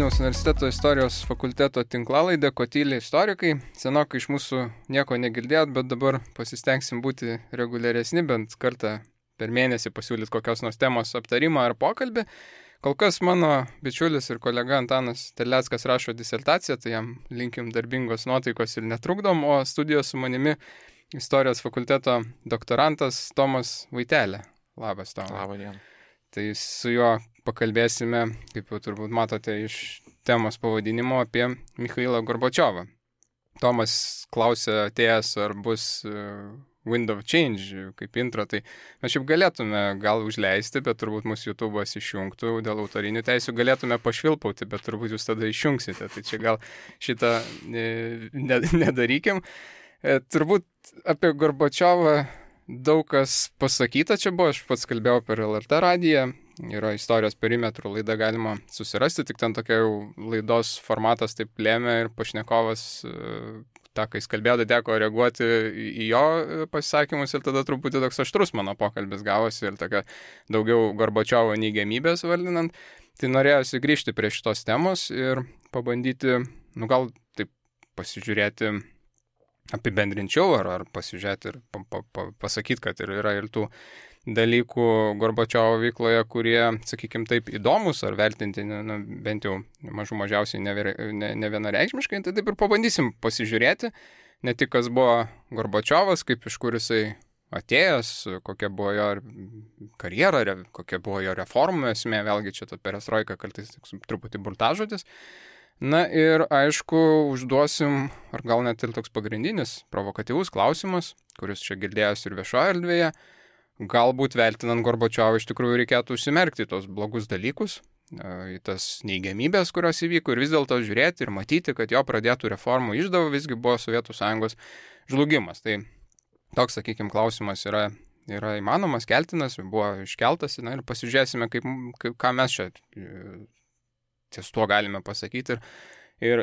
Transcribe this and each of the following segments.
Vilniaus universiteto istorijos fakulteto tinklalaidė Kotyliai istorikai. Senokai iš mūsų nieko negirdėjot, bet dabar pasistengsim būti reguliaresni, bent kartą per mėnesį pasiūlyti kokios nors temos aptarimą ar pokalbį. Kol kas mano bičiulis ir kolega Antanas Terleckas rašo disertaciją, tai jam linkim darbingos nuotaikos ir netrukdom, o studijos su manimi istorijos fakulteto doktorantas Tomas Vaitelė. Labas, Tomas. Labą dieną. Tai su juo pakalbėsime, kaip jau turbūt matote iš temos pavadinimo, apie Michailą Gorbačiovą. Tomas klausė atėjęs, ar bus Wind of Change kaip intro, tai mes šiaip galėtume gal užleisti, bet turbūt mūsų YouTube'as išjungtų dėl autorinių teisių, galėtume pašvilpauti, bet turbūt jūs tada išjungsite, tai čia gal šitą nedarykim. Turbūt apie Gorbačiovą daug kas pasakyta, čia buvo, aš pats kalbėjau per LRT radiją, yra istorijos perimetrų laida, galima susirasti, tik ten tokia jau laidos formatas taip lėmė ir pašnekovas, tą, kai jis kalbėjo, teko reaguoti į jo pasisakymus ir tada truputį toks aštrus mano pokalbis gavosi ir tokia daugiau Gorbačiovo neigiamybės vardinant. Tai norėjosi grįžti prie šitos temos ir pabandyti, gal taip pasižiūrėti apibendrinčiau ar pasižiūrėti ir pasakyti, kad yra ir tų dalykų Gorbačiovo veikloje, kurie, sakykime taip, įdomus ar vertinti, bent jau mažiausiai nevienareikšmiškai, tai taip ir pabandysim pasižiūrėti, ne tik kas buvo Gorbačiovas, kaip iš kur jisai atėjęs, kokia buvo jo karjera, kokia buvo jo reformų esmė, vėlgi čia ta perestroika kartais truputį burtažodis. Na ir aišku, užduosim, ar gal net ir toks pagrindinis, provokatyvus klausimas, kuris čia girdėjęs ir viešoje erdvėje, galbūt vertinant Gorbačiovą iš tikrųjų reikėtų užsimerkti tos blogus dalykus, į tas neigiamybės, kurios įvyko ir vis dėlto žiūrėti ir matyti, kad jo pradėtų reformų išdava visgi buvo Sovietų Sąjungos žlugimas. Tai toks, sakykime, klausimas yra įmanomas, keltinas, buvo iškeltas, ir pasižiūrėsime, ką mes čia ties tuo galime pasakyti ir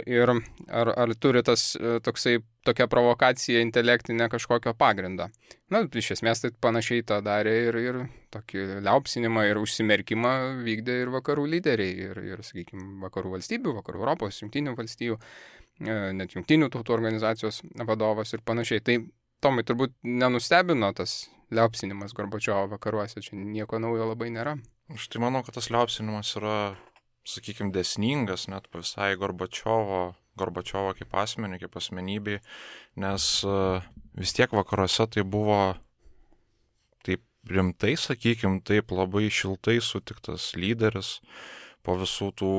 ar turi tokia provokacija intelektinė kažkokio pagrindo. Iš esmės tai panašiai tą darė ir tokį liaupsinimą ir užsimerkimą vykdė ir vakarų lyderiai ir sakykime, vakarų valstybių, vakarų Europos, jungtinių valstybių, net jungtinių tautų organizacijos vadovas ir panašiai. Tai Tomai turbūt nenustebino tas liaupsinimas Gorbačiovo vakaruose, čia nieko naujo labai nėra. Aš tai manau, kad tas liaupsinimas yra, sakykime, dėsningas net visai Gorbačiovo kaip asmenį, kaip asmenybei, nes vis tiek vakaruose tai buvo taip rimtai, sakykime, taip labai šiltai sutiktas lyderis po visų tų,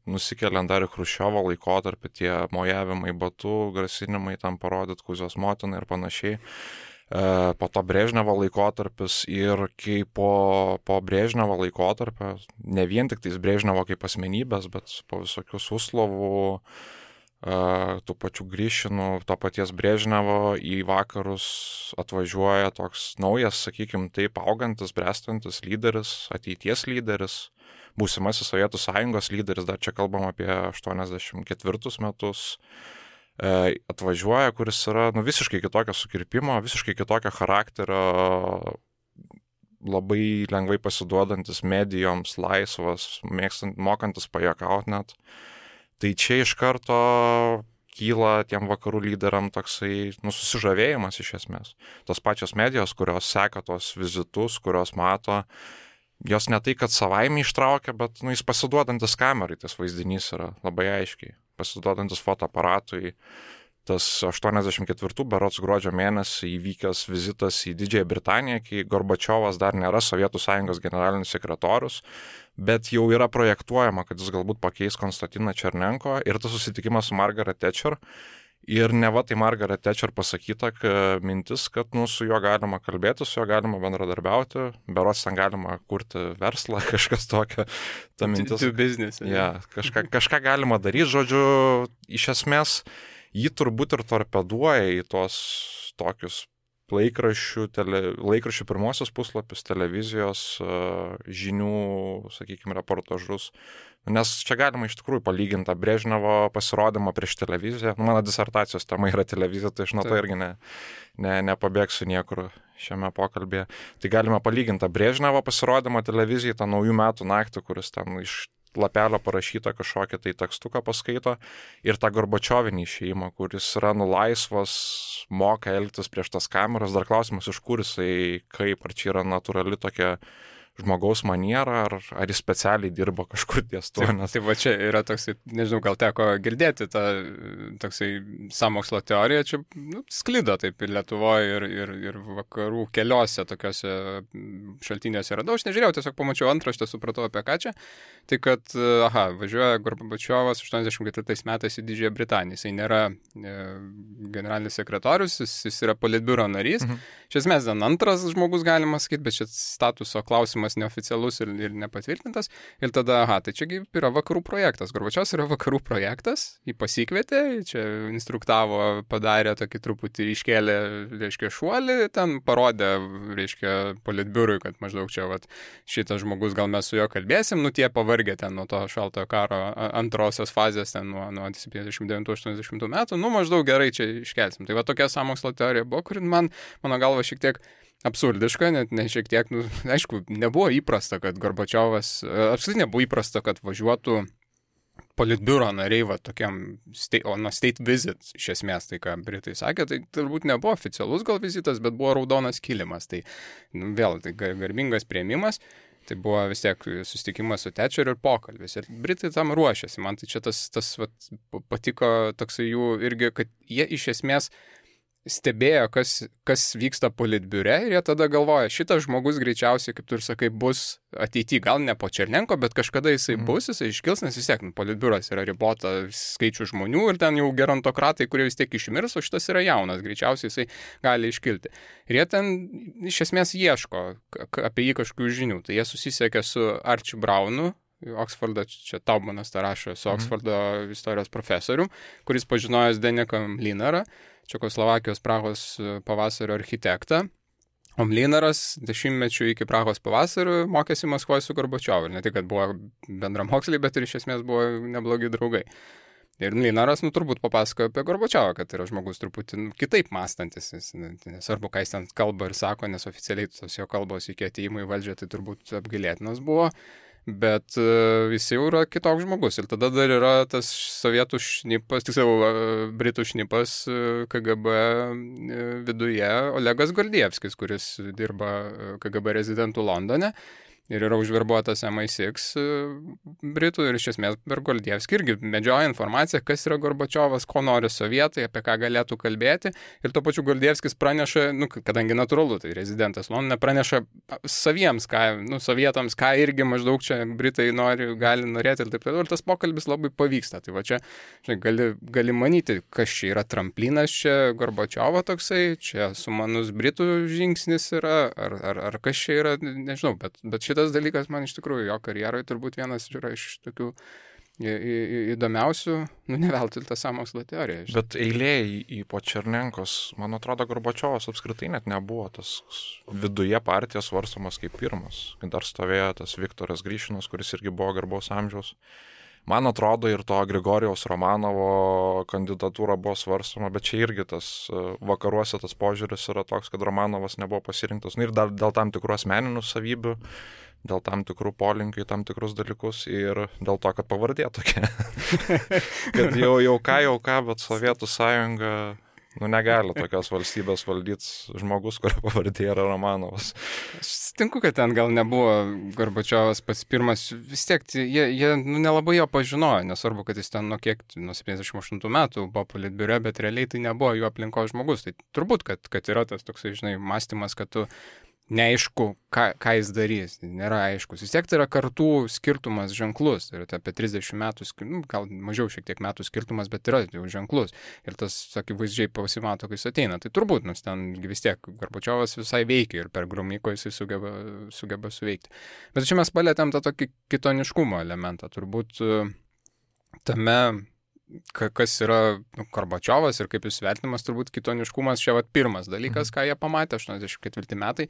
nusikeliant dar į Chruščiovo laikotarpį, tie mojavimai batu, grasinimai tam parodyti Kuzijos motinai ir panašiai. Po to Brežnevo laikotarpis ir kai po Brežnevo laikotarpio, ne vien tik tais Brežnevo kaip asmenybės, bet po visokių Suslovų, tų pačių Gryšinų, to paties Brežnevo į vakarus atvažiuoja toks naujas, sakykime, taip augantis, brestantis lyderis, ateities lyderis, būsimasis Sovietų Sąjungos lyderis, dar čia kalbam apie 84 metus, atvažiuoja, kuris yra visiškai kitokio sukirpimo, visiškai kitokio charakterio, labai lengvai pasiduodantis medijoms, laisvas, mokantis pajuokauti net. Tai čia iš karto kyla tiem vakarų lyderiam toksai susižavėjimas iš esmės. Tos pačios medijos, kurios seka tos vizitus, kurios mato, jos ne tai, kad savaime ištraukia, bet jis pasiduodantis kamerai, tas vaizdinys yra labai aiškiai. Pasiduodantis fotoaparatui, tas 84 berods gruodžio mėnesį įvykęs vizitas į Didžiąją Britaniją, kai Gorbačiovas dar nėra Sovietų Sąjungos generalinis sekretorius, bet jau yra projektuojama, kad jis galbūt pakeis Konstantiną Černenko ir tas susitikimas su Margaret Thatcher. Ir neva tai Margaret Thatcher pasakyta mintis, kad su juo galima kalbėti, su juo galima bendradarbiauti, berods ten galima kurti verslą, kažkas tokio. Ta mintis. Do business. Ja, kažką galima daryti, žodžiu, iš esmės jį turbūt ir torpeduoja į tos tokius laikraščių pirmosios puslapius, televizijos žinių, sakykime, reportažus. Nes čia galima iš tikrųjų palyginti tą Brežnevo pasirodymą prieš televiziją. Mano disertacijos tema yra televizija, tai aš nuo to irgi nepabėgsiu niekur šiame pokalbėje. Tai galime palyginti tą Brežnevo pasirodymą televizijai, tą naujų metų naktį, kuris ten iš lapelio parašytą kažkokią tai tekstuką paskaito ir tą Gorbačiovinį išėjimą, kuris yra laisvas, moka elgtis prieš tas kameras. Dar klausimas, iš kur jisai, kaip, ar čia yra natūrali tokia žmogaus maniera, ar jis specialiai dirbo kažkur ties tuo. Tai va čia yra toksai, nežinau, gal teko girdėti tą toksai sąmokslo teoriją, čia sklido taip ir Lietuvoje, ir vakarų keliose tokiuose šaltiniuose radau. Aš nežiūrėjau, tiesiog pamačiau antraštę, supratau apie ką čia. Tai kad, važiuoja Gorbačiovas 84 metais į Didžiąją Britaniją. Jisai nėra generalinis sekretorius, jis yra politbiuro narys. Iš esmės, antras žmogus galima sakyti, bet čia statuso klausimas neoficialus ir nepatvirtintas. Ir tada, tai čiagi yra vakarų projektas. Gorbačiovas yra vakarų projektas, jį pasikvietė, čia instruktavo, padarė tokį truputį iškėlė, reiškia, šuolį, ten parodė, reiškia, politbiurui, kad maždaug čia, šitas žmogus, gal mes su juo kalbėsim, tie pavargė ten nuo to šaltojo karo antrosios fazės, ten nuo 79-80 metų, maždaug gerai čia iškelsim. Tai va tokia sąmokslo teorija buvo, kuri mano galva šiek tiek absurdiška, net ne šiek tiek, aišku, nebuvo įprasta, kad Gorbačiovas, apskritai nebuvo įprasta, kad važiuotų politbiuro nariai, tokiam state visit, iš esmės, tai ką Britai sakė, tai turbūt nebuvo oficialus gal vizitas, bet buvo raudonas kilimas, tai vėl, tai garbingas priėmimas, tai buvo vis tiek susitikimas su Thatcher ir pokalbis, ir Britai tam ruošiasi, man tai čia tas patiko toksai jų irgi, kad jie iš esmės stebėjo, kas vyksta politbiure ir jie tada galvoja, šitas žmogus greičiausiai, kaip tu ir sakai, bus ateityje, gal ne po Černenko, bet kažkada jisai bus, jisai iškils, nes vis tiek politbiuras yra ribota skaičių žmonių ir ten jau gerontokratai, kurie vis tiek išmirs, o šitas yra jaunas, greičiausiai jisai gali iškilti. Ir jie ten iš esmės ieško apie jį kažkokių žinių, tai jie susisiekė su Archie Brownu, Oksfordo, čia Taumanas tą rašo, su Oksfordo istorijos profesorium, kuris pažinojęs Deniką Mlynarą, Čekoslovakijos Prahos pavasario architektą. O Mlynaras 10 iki Prahos pavasario mokėsi Maskvoje su Gorbačiovu. Ir ne tik, kad buvo bendramoksliai, bet ir iš esmės buvo neblogi draugai. Ir Mlynaras, turbūt papasakojo apie Gorbačiovą, kad yra žmogus truputį kitaip mąstantis. Nesvarbu, ką jis ten kalba ir sako, nes oficialiai tos jo kalbos iki atėjimo į valdžią tai turbūt apgailėtinas buvo. Bet jis jau yra kitoks žmogus. Ir tada dar yra tas sovietų šnipas, tiksliau britų šnipas KGB viduje, Olegas Gordievskis, kuris dirba KGB rezidentų Londone. Ir yra užverbuotas MI6 Britų ir iš esmės per Gordievskį irgi medžioja informaciją, kas yra Gorbačiovas, ko nori sovietai, apie ką galėtų kalbėti. Ir tuo pačiu Gordievskis praneša, kadangi natūralu, tai rezidentas Londone praneša saviems, sovietams, ką irgi maždaug čia Britai gali norėti ir taip toliau. Ir tas pokalbis labai pavyksta. Tai va čia gali manyti, kas čia yra tramplinas čia Gorbačiovo toksai, čia sumanus Britų žingsnis yra, ar kas čia yra, nežinau, bet šitas dalykas man iš tikrųjų jo karjeroje turbūt vienas yra iš tokių įdomiausių, ne veltui ta sąmokslo teorija. Bet eilė į po Černenkos, man atrodo, Gorbačiovas apskritai net nebuvo tas viduje partijos svarstomas kaip pirmas. Dar stovėjo tas Viktoras Gryšinas, kuris irgi buvo garbaus amžiaus. Man atrodo, ir to Grigorijaus Romanovo kandidatūra buvo svarstoma, bet čia irgi tas vakaruose tas požiūris yra toks, kad Romanovas nebuvo pasirinktas. Ir dar dėl tam tikrų asmeninių savybių, dėl tam tikrų polinkių, tam tikrus dalykus ir dėl to, kad pavardė tokia. Kad jau ką, bet Sovietų sąjunga negali tokios valstybės valdyti žmogus, kurio pavardė yra Romanovas. Aš sutinku, kad ten gal nebuvo Gorbačiovas pats pirmas, vis tiek jie nelabai jo pažinojo, nesvarbu, kad jis ten nuo 78 metų buvo politbiure, bet realiai tai nebuvo jų aplinkos žmogus. Tai turbūt, kad yra tas toksai, mąstymas, kad tu neaišku, ką jis darys, nėra aiškus. Vis tiek tai yra kartų skirtumas ženklus, tai yra apie 30 metų, gal mažiau šiek tiek metų skirtumas, bet yra jau ženklus. Ir tas, akivaizdžiai pasimato, kai jis ateina. Tai turbūt, nes ten vis tiek Gorbačiovas visai veikia ir per Gromyko jisai sugeba suveikti. Bet čia mes palėtėm tą tokį kitoniškumo elementą. Turbūt tame, kas yra Gorbačiovas ir kaip jis vertinamas, turbūt kitoniškumas čia pirmas dalykas, ką jie pamatė 84 metai.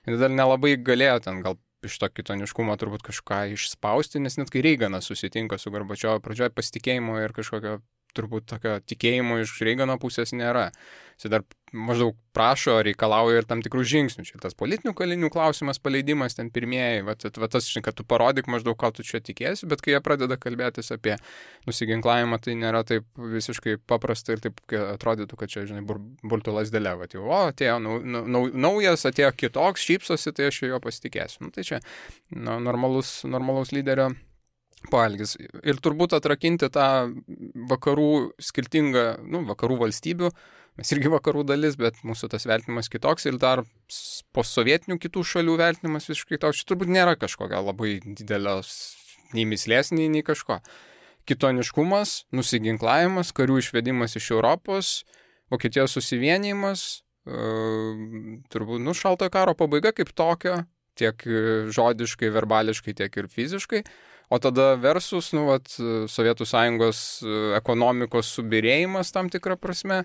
Ir dar nelabai galėjo ten gal iš to kitoniškumo turbūt kažką išspausti, nes net kai Reiganas susitinka su Gorbačiovu, pradžioje pasitikėjimo ir kažkokio turbūt tokio tikėjimo iš Reigano pusės nėra. Jis dar maždaug prašo, reikalauja ir tam tikrų žingsnių. Čia tas politinių kalinių klausimas, paleidimas ten pirmieji, va tas, kad tu parodyk maždaug, ką tu čia tikėsi, bet kai jie pradeda kalbėtis apie nusiginklavimą, tai nėra taip visiškai paprasta ir taip atrodytų, kad čia, žinai, burtų lasdelė, va, jau, atėjo naujas, atėjo kitoks, šypsosi, tai aš jo pasitikėsiu. Tai čia normalus lyderio poelgis. Ir turbūt atrakinti tą vakarų skirtingą, vakarų valstybių, mes irgi vakarų dalis, bet mūsų tas vertinimas kitoks ir dar postsovietinių kitų šalių vertinimas visiškai toks. Čia turbūt nėra kažkokio labai didelės nei mislės, nei kažko. Kitoniškumas, nusiginklavimas, karių išvedimas iš Europos, Vokietijos susivienijimas, turbūt, šaltojo karo pabaiga kaip tokio, tiek žodiškai, verbališkai, tiek ir fiziškai. O tada versus, Sovietų Sąjungos ekonomikos subirėjimas tam tikrą prasme,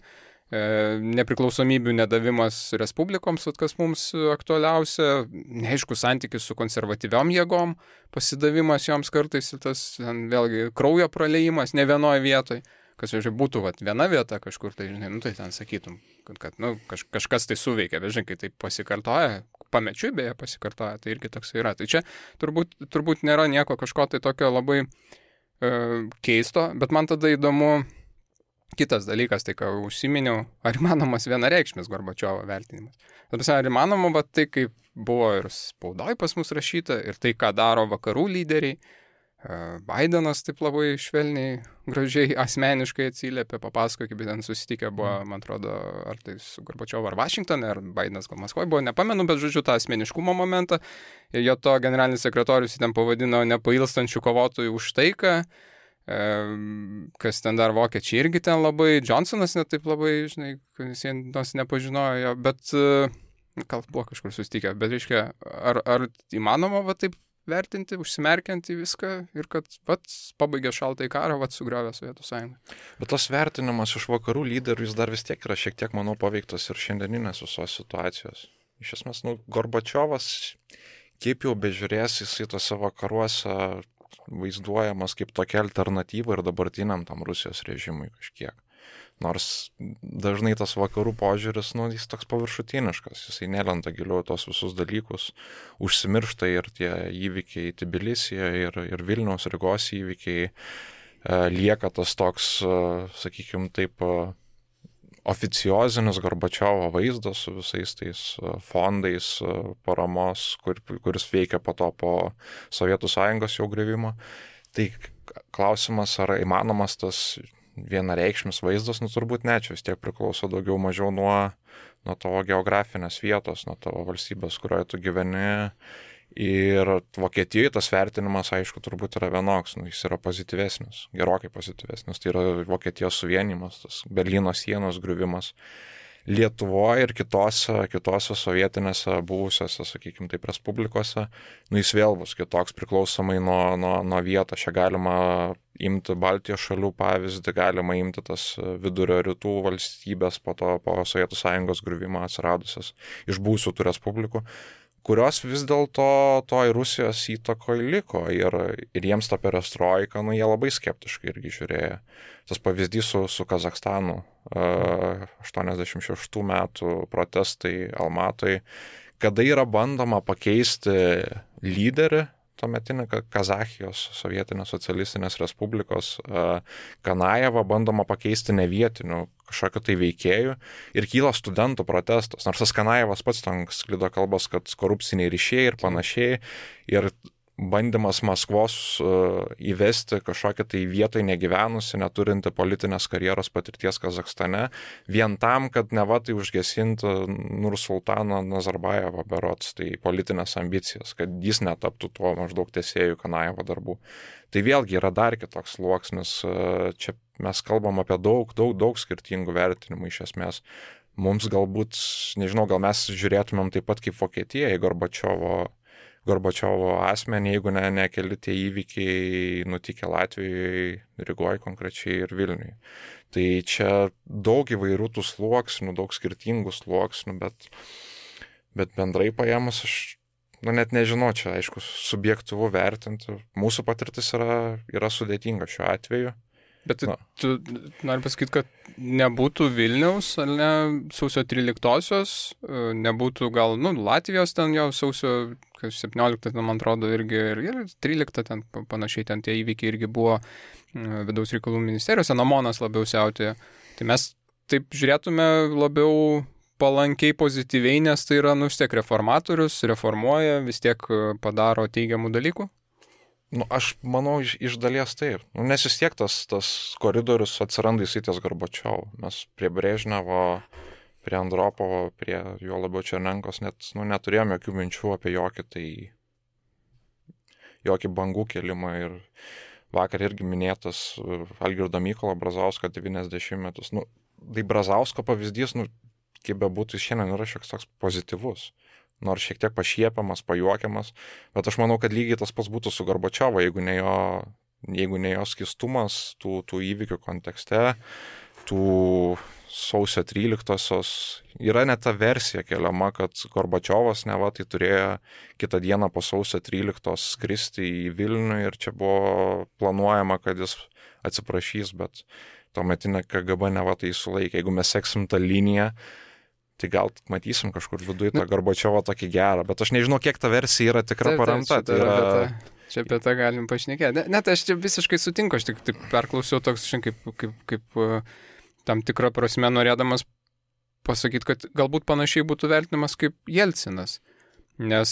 nepriklausomybių nedavimas respublikoms, kas mums aktualiausia, neaišku santykis su konservatyviom jėgom, pasidavimas joms kartais ir tas vėlgi kraujo praleimas ne vienoje vietoje, kas jau būtų viena vieta kažkur, tai žinai, tai ten sakytum, kad kažkas tai suveikia, bet žinai, kai tai pasikartoja, pamečiui beje pasikartoja, tai irgi toks yra. Tai čia turbūt nėra nieko kažko tai tokio labai keisto, bet man tada įdomu kitas dalykas, tai ką užsiminiau, ar įmanomas vienareikšmis Gorbačiovo vertinimas. Ar įmanoma, bet tai kaip buvo ir spaudoj pas mus rašyta, ir tai, ką daro vakarų lyderiai, Bidenas taip labai švelniai, gražiai, asmeniškai atsiliepė, papasako, kaip ten susitikę buvo, man atrodo, ar tai su Gorbačiovu ar Vašingtone, ar Bidenas gal Maskvoje buvo, nepamenu, bet žodžiu tą asmeniškumo momentą. Ir jo to generalinis sekretorius ten pavadino nepailstančių kovotojų už taiką, kas ten dar vokiečiai irgi ten labai, Johnsonas net taip labai, žinai, jis nors nepažinojo jo, bet gal buvo kažkur susitikę, bet reiškia, ar įmanoma taip vertinti, užsimerkiant į viską ir kad pabaigė šaltąjį karą, sugriovė Sovietų Sąjungą. Bet tas vertinimas iš vakarų lyderių, jis dar vis tiek yra šiek tiek, manau, paveiktas ir šiandieninės visos situacijos. Iš esmės, Gorbačiovas, kaip jau bežiūrės, jisai tose vakaruose vaizduojamas kaip tokia alternatyva ir dabartiniam tam Rusijos režimui kažkiek. Nors dažnai tas vakarų požiūris, jis toks paviršutiniškas, jisai nelenda giliau tos visus dalykus, užsimiršta ir tie įvykiai Tbilisyje ir Vilniaus Rygos įvykiai, lieka tas toks, sakykime taip, oficiozinis Gorbačiovo vaizdas su visais tais fondais paramos, kuris veikia po Sovietų Sąjungos jau griuvimo. Tai klausimas, ar įmanomas tas vienareikšmis vaizdas, turbūt ne, čia vis tiek priklauso daugiau mažiau nuo tavo geografinės vietos, nuo tavo valstybės, kurioje tu gyveni. Ir Vokietijoje tas vertinimas, aišku, turbūt yra vienoks, jis yra pozityvesnis, gerokai pozityvesnis, tai yra Vokietijos suvienimas, tas Berlyno sienos griuvimas. Lietuvoje ir kitose sovietinėse buvusiose, sakykime taip, respublikose, jis vėl bus kitoks priklausomai nuo vietos. Čia galima imti Baltijos šalių pavyzdį, galima imti tas vidurio rytų valstybės po Sovietų Sąjungos griuvimo atsiradusias iš buvusių tų respublikų, kurios vis dėlto toj Rusijos įtakoje liko ir jiems ta perestroika, jie labai skeptiškai irgi žiūrėjo. Tas pavyzdys su Kazachstanu, 86 metų protestai Almatoj, kada yra bandoma pakeisti lyderį, tuometinį Kazachijos sovietinės socialistinės respublikos Kanajevą bandoma pakeisti nevietiniu kažkokiu tai veikėjų ir kyla studentų protestas. Nors tas Kanajevas pats ten sklido kalbos, kad korupciniai ryšiai ir panašiai ir bandymas Maskvos įvesti kažkokią tai vietoj negyvenusi, neturinti politinės karjeros patirties Kazachstane, vien tam, kad neva tai užgesinti Nursultaną Nazarbajevą berods, tai politinės ambicijas, kad jis netaptų tuo maždaug tęsėjų Kanajevo darbų. Tai vėlgi yra dar kitoks sluoksnis, čia mes kalbam apie daug skirtingų vertinimų iš esmės. Mums galbūt, nežinau, gal mes žiūrėtumėm taip pat kaip Vokietija į Gorbačiovo asmenį, jeigu ne keli tie įvykiai nutikę Latvijoje, Rygoje konkrečiai ir Vilniuje. Tai čia daug įvairių tų sluoksnių, daug skirtingų sluoksnių, bet bendrai paėmus aš net nežinau, čia aišku subjektyvu vertinti. Mūsų patirtis yra sudėtinga šiuo atveju. Bet tu nori pasakyti, kad nebūtų Vilniaus, ar ne, sausio 13-osios, nebūtų gal, Latvijos ten jau sausio 17, man atrodo, irgi ir 13 ten panašiai ten tie įvykiai irgi buvo vidaus reikalų ministerijose, Namonas labiau siautėjo. Tai mes taip žiūrėtume labiau palankiai, pozityviai, nes tai yra, vis tiek reformatorius, reformuoja, vis tiek padaro teigiamų dalykų. Aš manau, iš dalies taip. Nes vis tiek tas koridorius atsiranda įsitės Gorbačiovo. Mes prie Brežnevo, prie Andropovo, prie jo labiau Černenkos net neturėjome jokių minčių apie jokį bangų kelimą. Ir vakar irgi minėtas Algirdo Mykolo Brazausko 90-metus. Tai Brazausko pavyzdys, kaip bebūtų, šiandien yra šioks toks pozityvus. Nors šiek tiek pašiepiamas, pajuokiamas, bet aš manau, kad lygiai tas pats būtų su Gorbačiovo, jeigu ne jo skistumas tų įvykių kontekste, tų sausio 13-osios. Yra net ta versija keliama, kad Gorbačiovas neva tai turėjo kitą dieną po sausio 13-os skristi į Vilnių ir čia buvo planuojama, kad jis atsiprašys, bet tuometinė KGB neva tai sulaikė. Jeigu mes seksim tą liniją, tai gal matysim kažkur viduje tą Gorbačiovą tokį gerą, bet aš nežinau, kiek ta versija yra tikra paremta. Čia apie tą galim pašnekėti. Net aš čia visiškai sutinku, aš tik perklausiau toks kaip tam tikrą prasme norėdamas pasakyti, kad galbūt panašiai būtų vertinamas kaip Jelcinas. Nes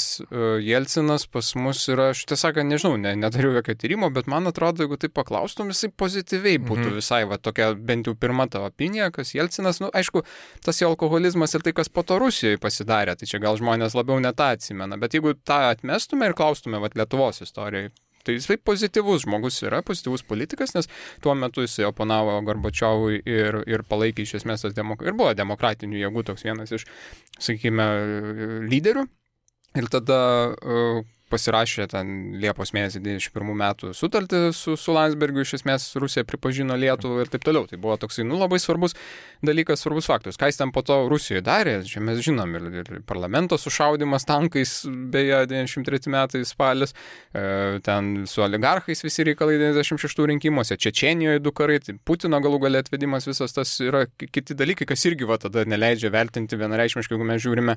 Jelcinas pas mus yra, aš tiesąką nežinau, nedariau jokio tyrimo, bet man atrodo, jeigu tai paklaustum, jisai pozityviai būtų visai, tokia bent jau pirma tavo opinija, kas Jelcinas, aišku, tas jo alkoholizmas ir tai, kas po to Rusijoje pasidarė, tai čia gal žmonės labiau net atsimena, bet jeigu tą atmestume ir klaustume Lietuvos istorijai, tai jisai pozityvus žmogus yra, pozityvus politikas, nes tuo metu jisai oponavo Gorbačiovui ir palaikė iš esmės ir buvo demokratinių jėgų toks vienas iš, sakykime, lyderių. Ir tada pasirašė ten Liepos mėnesį 91 metų sutartį su Landsbergiu, iš esmės Rusija pripažino Lietuvą ir taip toliau. Tai buvo toksai, labai svarbus dalykas, svarbus faktorius. Ką jis ten po to Rusijoje darė, čia mes žinom, ir parlamento sušaudimas tankais, beje, 93 metai spalis, ten su oligarchais visi reikalai 96 rinkimuose, Čečėnijoje 2 karai, tai Putino galų gale atvedimas, visas tas yra kiti dalykai, kas irgi tada neleidžia vertinti vienareikšmiškai, jeigu mes žiūrime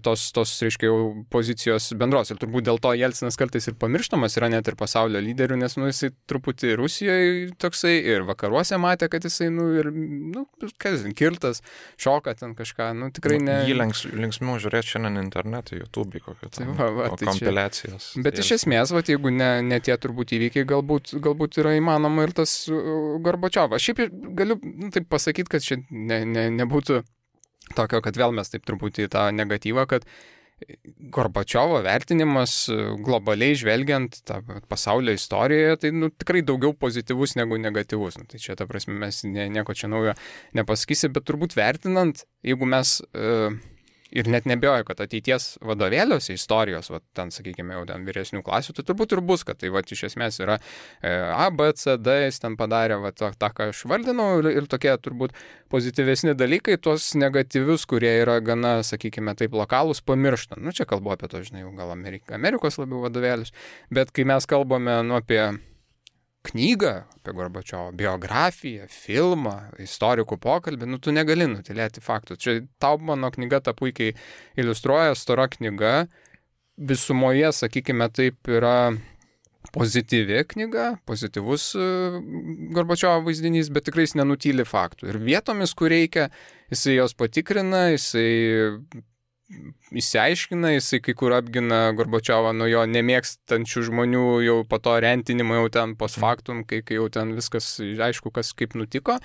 tos reiškia, jau pozicijos bendros. Ir turbūt dėl to Jelcinas kartais ir pamirštamas yra net ir pasaulio lyderių, nes jisai truputį Rusijoje toksai ir vakaruose matė, kad jisai, kirtas, šoka ten kažką, tikrai ne. Jį linksmiau žiūrėti šiandien internete, YouTube kokio kompiliacijos. Bet iš esmės, jeigu ne tie turbūt įvykiai, galbūt yra įmanoma ir tas Gorbačiovas. Šiaip galiu taip pasakyti, kad čia nebūtų tokio, kad vėl mes taip truputį tą negatyvą, kad Gorbačiovo vertinimas globaliai žvelgiant tą pasaulio istorijoje, tai tikrai daugiau pozityvus negu negatyvus. Tai čia, ta prasme, mes nieko čia naujo nepasakysi, bet turbūt vertinant, jeigu mes ir net nebejoju, kad ateities vadovėliuose istorijos, ten, sakykime, jau ten vyresnių klasių, tai turbūt ir bus, kad tai iš esmės yra A, B, C, D, jis ten padarė tą, ką aš vardinau, ir tokie turbūt pozityvesni dalykai, tuos negatyvius, kurie yra gana, sakykime, taip lokalūs, pamirštant. Čia kalbu apie to, žinai, gal Amerikos labiau vadovėlius, bet kai mes kalbame apie knygą, apie Gorbačiovo, biografiją, filmą, istorikų pokalbį, tu negali nutylėti faktų. Čia Taubmano knyga tą puikiai iliustruoja, stora knyga, visumoje, sakykime, taip yra pozityvi knyga, pozityvus Gorbačiovo vaizdinys, bet tikrai jis nenutyli faktų. Ir vietomis, kur reikia, jisai jos patikrina, jisai įsiaiškina, jisai kai kur apgina Gorbačiovą nuo jo nemėgstančių žmonių jau po to rentinimo jau ten post factum, kai jau ten viskas aišku, kas kaip nutiko,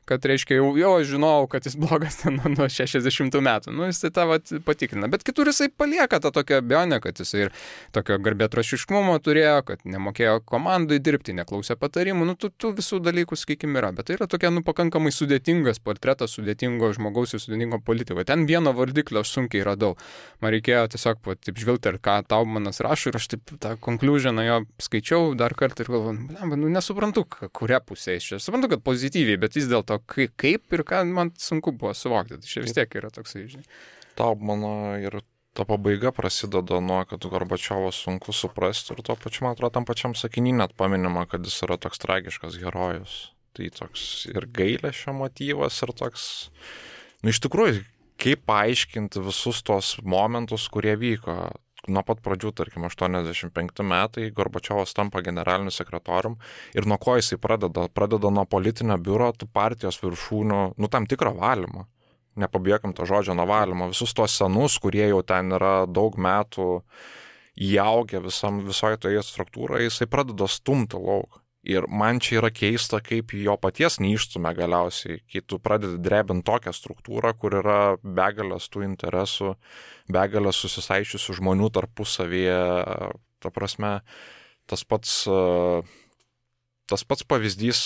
kad reiškia jau žinojau, kad jis blogas ten nuo 60 metų. Jisai tą patikrina. Bet kitur jisai palieka tą tokią abejonę, kad jisai ir tokio garbėtrošiškumo turėjo, kad nemokėjo komandai dirbti, neklausė patarimų. Tų visų dalykų, sakykime, yra. Bet tai yra tokia pakankamai sudėtingas portretas sudėtingo žmogaus ir sudėtingo politiko. Ten vieno vardiklio aš sunkiai radau. Man reikėjo tiesiog taip žvilgti, ir ką Taubmanas rašo, ir aš taip tą konkliužioną jo skaičiau dar kartą ir galvoju, nesuprantu, kuria pusė iš čia. Suprantu, kad pozityviai, bet vis dėlto kaip ir ką man sunku buvo suvokti. Tai čia vis tiek yra toksai, žinai. Taubmano ir ta pabaiga prasideda nuo, kad Gorbačiovo sunku suprasti ir tuo pačiu, man atrodo, tam pačiam sakiny net paminima, kad jis yra toks tragiškas herojus. Tai toks ir gailesčio motyvas, ir toks, iš tikrųjų, kaip paaiškinti visus tos momentus, kurie vyko. Nuo pat pradžių, tarkim, 85 metai, Gorbačiovas tampa generaliniu sekretorium ir nuo ko jisai pradeda nuo politinio biuro, tų partijos viršūnių, tam tikro valymo. Nepabijokime to žodžio nuo valymo. Visus tos senus, kurie jau ten yra daug metų įaugę visoje toje struktūroje, jisai pradeda stumti lauk. Ir man čia yra keista, kaip jo paties neišstumia galiausiai, kai tu pradedi drebinti tokią struktūrą, kur yra begalės tų interesų, begalės susisaičiusių žmonių tarpusavyje. Ta prasme, tas pats pavyzdys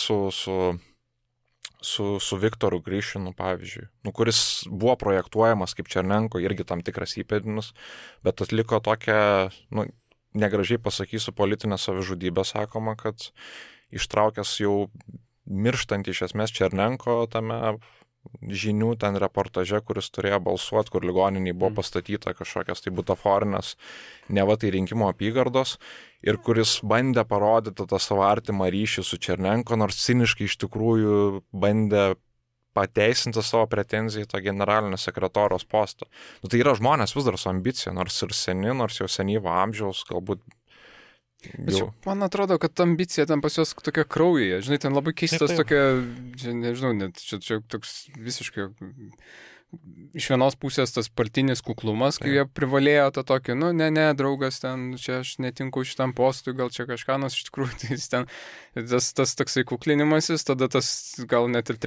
su Viktoru Grišinu, pavyzdžiui, kuris buvo projektuojamas kaip Černenko, irgi tam tikras įpėdinis, bet atliko tokią, negražiai pasakysiu, politinę savižudybę, sakoma, kad ištraukęs jau mirštant iš esmės Černenko tame žinių ten reportaže, kuris turėjo balsuoti, kur ligoniniai buvo pastatyta kažkokias tai butaforinės, neva tai rinkimų apygardos, ir kuris bandė parodyti tą savo artimą ryšį su Černenko, nors ciniškai iš tikrųjų bandė pateisinti savo pretenziją į tą generalinio sekretoriaus postą. Tai yra žmonės vis dar su ambicija, nors ir seni, nors jau senyvo amžiaus, galbūt. Čia, man atrodo, kad ambicija ten pas juos tokia kraujyje. Žinai, ten labai keistas tokia, nežinau, net čia toks visiškai iš vienos pusės tas partinis kuklumas, kai jie privalėjo tą tokį, ne, draugas, ten, čia aš netinku šitam postui, gal čia kažką, nors iš tikrųjų tai ten, tas toksai kuklinimasis, tada tas gal net ir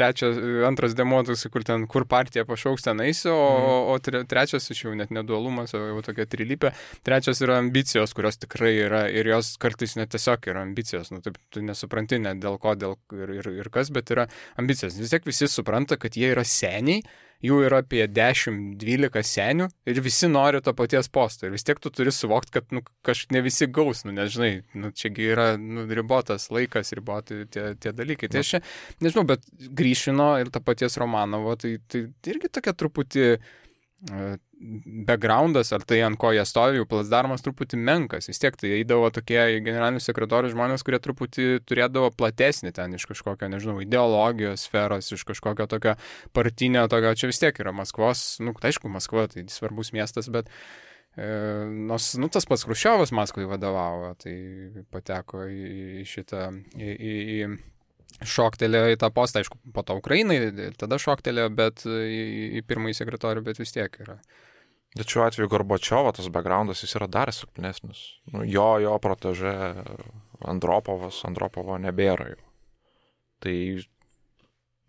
antras demo, toksai, kur partija pašauks ten eisi, o trečias iš jau net nedualumas, o jau tokia trilypė, trečias yra ambicijos, kurios tikrai yra, ir jos kartais net tiesiog yra ambicijos, taip, tu nesupranti net dėl ko, ir kas, bet yra ambicijos. Vis tiek visi supranta, kad jie yra seniai, jų yra apie 10-12 senių ir visi nori to paties posto. Ir vis tiek tu turi suvokti, kad kažkaip ne visi gaus, nežinai, čiagi yra ribotas laikas, riboti tie dalykai. Tai aš čia, nežinau, bet Grišino ir to paties Romanovo, tai irgi tokia truputį backgroundas, ar tai ant ko jie stovi, jų plasdarmas truputį menkas. Vis tiek tai eidavo tokie generalinių sekretorių žmonės, kurie truputį turėdavo platesnį ten iš kažkokio, nežinau, ideologijos sferos, iš kažkokio tokio partinio, tokio, čia vis tiek yra Maskvos, aišku, Maskva tai svarbus miestas, bet nors, tas pats Chruščiovas Maskvai vadovavo, tai pateko į šitą, šoktelėjo į tą postą, aišku, po to Ukrainai, tada šoktelėjo, bet į pirmąjį sekretorių, bet vis tiek yra. Bet šiuo atveju Gorbačiovo tas backgroundas, jis yra dar silpnesnis. Jo protežė Andropovo nebėra jau. Tai,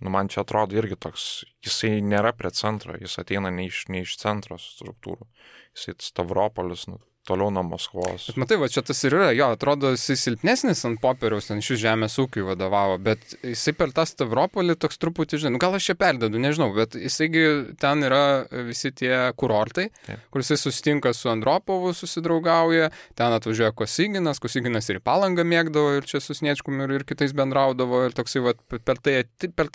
man čia atrodo irgi toks, jisai nėra prie centro, jis ateina ne iš centro struktūrų. Jisai Stavropolis, toliau nuo Maskvos. Bet matai, va čia tas ir yra, jo, atrodo, jisai silpnesnis ant popieriaus, ten šis žemės ūkiui vadovavo, bet jisai per tą Stavropolį toks truputį, žinai, gal aš čia perdedu, nežinau, bet jisaigi ten yra visi tie kurortai, kur jisai susitinka su Andropovu, susidraugauja, ten atvažiuoja Kosyginas ir į Palangą mėgdavo, ir čia su Sniečkum ir kitais bendraudavo, ir toksai, va, per tai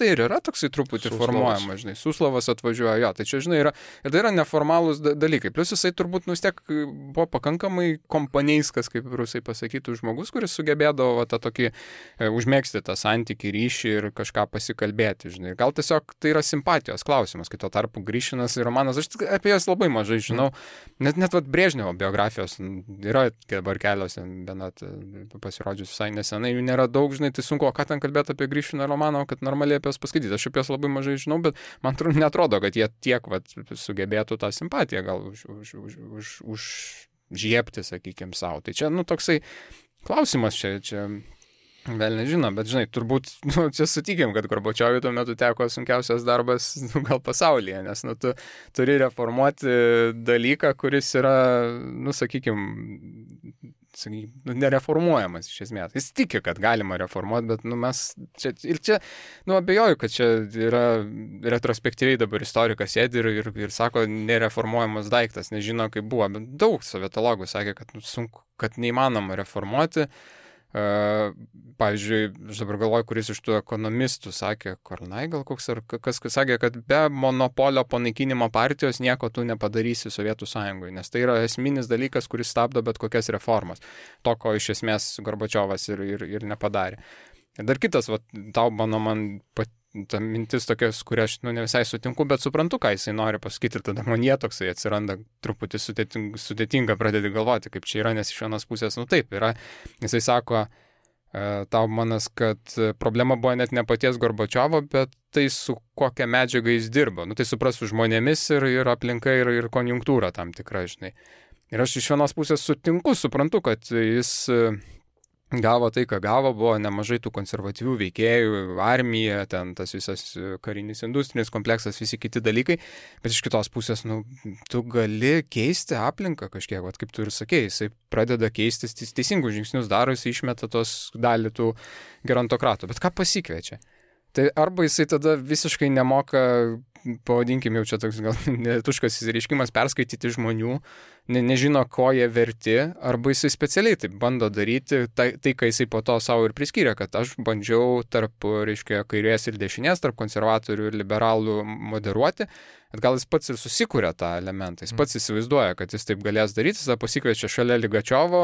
ir yra toksai truputį formuojama, žinai, Suslavas atvažiuoja, jo, tai čia, žinai, yra, ir tai yra neformalūs dalykai, plus jisai turbūt vis tiek buvo pakankamai kompanijskas, kaip rusai pasakytų, žmogus, kuris sugebėdavo tą tokį užmėgsti tą santykį, ryšį ir kažką pasikalbėti, žinai. Gal tiesiog tai yra simpatijos klausimas, kai tuo tarpu Grišinas ir Romanas, aš apie jas labai mažai žinau, net vat Brežnevo biografijos yra dabar kelios, bet pasirodžius visai nesenai, jų nėra daug, žinai, tai sunku, o ką ten kalbėti apie Grišiną ir Romanovą, kad normaliai apie jas paskaityti. Aš apie jas labai mažai žinau, bet man netrodo, kad jie tiek sugebėtų tą simpatiją gal žiepti, sakykime, savo. Tai čia, toksai klausimas čia vėl nežino, bet, žinai, turbūt, čia sutikim, kad Gorbačiovui tuo metu teko sunkiausias darbas, gal pasaulyje, nes, tu turi reformuoti dalyką, kuris yra, sakykime, nereformuojamas iš esmės. Jis tiki, kad galima reformuoti, bet mes čia, abejoju, kad čia yra retrospektyviai dabar istorikas sėdi ir sako, nereformuojamas daiktas, nežino, kaip buvo, bet daug sovietologų sakė, kad sunku, kad neįmanoma reformuoti. Pavyzdžiui, aš dabar galvoju, kuris iš tų ekonomistų sakė, Kornai gal koks, ar kas sakė, kad be monopolio panaikinimo partijos nieko tu nepadarysi Sovietų Sąjungoje, nes tai yra esminis dalykas, kuris stabdo bet kokias reformas. To, ko iš esmės Gorbačiovas ir nepadarė. Ir dar kitas, va, Taubmano man ta mintis tokia, kuria aš ne visai sutinku, bet suprantu, ką jisai nori pasakyti ir tada man jie toksai atsiranda truputį sudėtinga pradėti galvoti, kaip čia yra, nes iš vienos pusės, taip yra. Jisai sako, Taubmanas, kad problema buvo net ne paties Gorbačiovo, bet tai su kokia medžiaga jis dirbo. Tai supras su žmonėmis ir aplinka ir konjunktūra tam tikra, žinai. Ir aš iš vienos pusės suprantu, kad jis gavo tai, ką gavo, buvo nemažai tų konservatyvių veikėjų, armija, ten tas visas karinis industrinis kompleksas, visi kiti dalykai, bet iš kitos pusės, tu gali keisti aplinką kažkiek, kaip tu ir sakei, jisai pradeda keistis, teisingus žingsnius daro, jisai išmeta tos dalį tų gerontokratų, bet ką pasikviečia? Tai arba jisai tada visiškai nemoka, pavadinkim jau čia toks gal netuškas įsireiškimas, perskaityti žmonių, nežino, ko jie verti, arba jisai specialiai taip bando daryti, tai ką jisai po to savo ir priskyrė, kad aš bandžiau tarp, reiškia, kairės ir dešinės, tarp konservatorių ir liberalų moderuoti, bet gal jis pats ir susikūrė tą elementą, jis pats įsivaizduoja, kad jis taip galės daryti, jis pasikviečia šalia Ligačiovo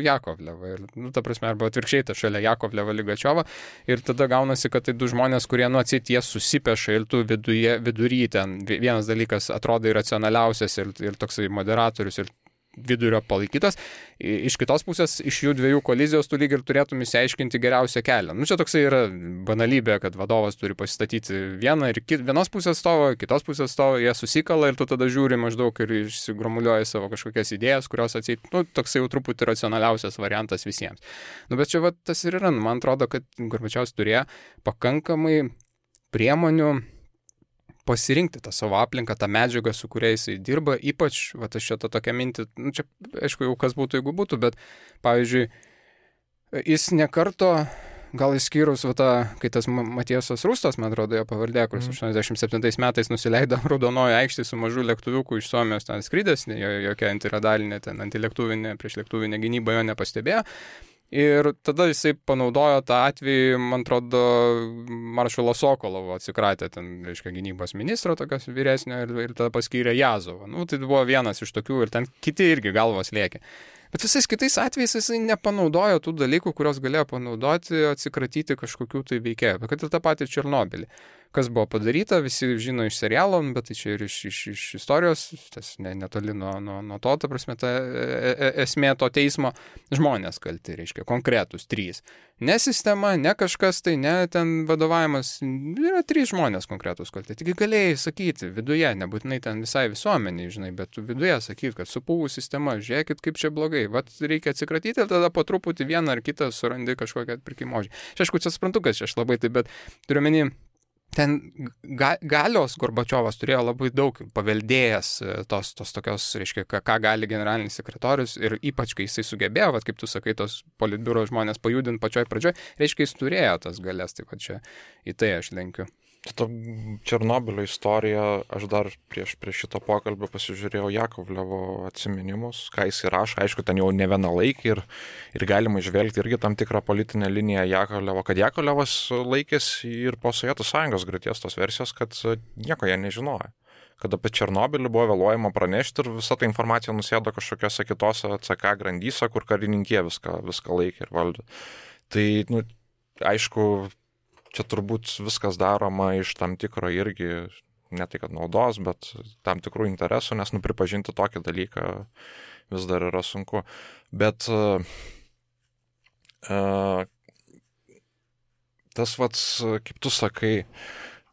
Jakovlevą, ir, ta prasme, arba atvirkščiai tą šalia Jakovlevą Ligačiovą, ir tada gaunasi, kad tai du žmonės, kurie atsit jie susipeša ir tu vidury ten, vienas dalykas atrodo iracionaliausias ir toksai moderatorius ir vidurio palaikytas, iš kitos pusės, iš jų dviejų kolizijos tu lyg ir turėtum įsiaiškinti geriausią kelią. Čia toksai yra banalybė, kad vadovas turi pasistatyti vieną ir vienos pusės stovo, kitos pusės stovo, jie susikala ir tu tada žiūri maždaug ir išsigromuliuoji savo kažkokias idėjas, kurios atseit, toksai jau truputį racionaliausias variantas visiems. Bet čia tas ir yra, man atrodo, kad Gorbačiovas turėjo pakankamai priemonių pasirinkti tą savo aplinką, tą medžiagą, su kuria jisai dirba, ypač, aš čia tą tokią mintį, čia aišku jau kas būtų, jeigu būtų, bet pavyzdžiui, jis nekarto, gal išskyrus, kai tas Matiesas Rustas, man atrodo, jo pavardė, kuris 87 metais nusileido Raudonojo aikštėje su mažu lėktuviuku iš Suomijos ten skridęs, jokia antiradalinė, antilėktuvinė, priešlėktuvinė gynyba jo nepastebėjo. Ir tada jisai panaudojo tą atvejį, man atrodo, Maršalo Sokolovo atsikratė ten, reiškia, gynybos ministro tokios vyresnio ir tada paskyrė Jazovą. Tai buvo vienas iš tokių ir ten kiti irgi galvos lėkė. Bet visais kitais atvejais jisai nepanaudojo tų dalykų, kurios galėjo panaudoti, atsikratyti kažkokių tai veikėjų. Kad ir tą patį Černobylį. Kas buvo padaryta, visi žino iš serialo, bet tai čia ir iš istorijos, tas netoli nuo to, ta prasme, ta esmė to teismo, žmonės kalti, reiškia, konkretus 3. Ne sistema, ne kažkas, tai ne ten vadovavimas, yra 3 žmonės konkretus kalti. Taigi galėjai sakyti viduje, nebūtinai ten visai visuomeniai, žinai, bet viduje sakyti, kad supuvų sistema, žiūrėkit, kaip čia blogai, reikia atsikratyti ir tada po truputį vieną ar kitą surandi kažkokią atpirkimo ožį. Aišku, čia suprantu, kad aš labai taip, bet turiu menį, ten galios Gorbačiovas turėjo labai daug paveldėjęs tos tokios, reiškia, ką gali generalinis sekretorius ir ypač, kai jisai sugebėjo, kaip tu sakai, tos politbiuro žmonės pajudinti pačioj pradžioj, reiškia, jis turėjo tas galias, taip pat čia į tai aš lenkiu. Ta Černobylio istorija, aš dar prieš šito pokalbio pasižiūrėjau Jakovlevo atsiminimus, ką jis rašo, aišku, ten jau ne vieną laikį ir galima išvelgti irgi tam tikrą politinę liniją Jakovlevo, kad Jakovlevas laikėsi ir po Sovietų Sąjungos griūties tos versijos, kad nieko jie nežinojo. Kad apie Černobylį buvo vėluojama pranešti ir visa ta informacija nusėdo kažkokiose kitose CK grandyse, kur karininkė viską laikė ir valdė. Tai, aišku, čia turbūt viskas daroma iš tam tikro irgi, ne tai kad naudos, bet tam tikrų interesų, nes pripažinti tokį dalyką vis dar yra sunku. Bet tas kaip tu sakai,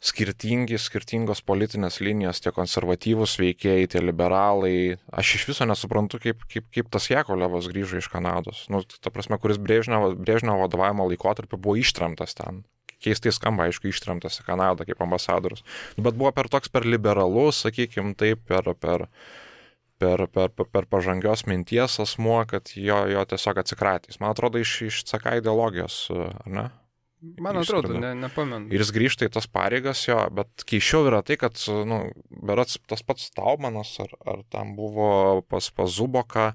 skirtingos politinės linijos, tie konservatyvūs veikėjai, tie liberalai, aš iš viso nesuprantu, kaip tas Jakovlevas grįžo iš Kanados. Ta prasme, kuris Brežnevo vadovavimo laikotarpiu buvo ištremtas ten. Keistai skamba, aišku, ištremtas į Kanadą kaip ambasadorius. Bet buvo per liberalus, sakykime, taip, per pažangios minties asmuo, kad jo tiesiog atsikratys. Man atrodo, iš CK ideologijos, ar ne? Man atrodo, nepamenu. Ir jis grįžta į tas pareigas jo, bet keisčiau yra tai, kad, berods tas pats Taubmanas, ar tam buvo pas Zuboką,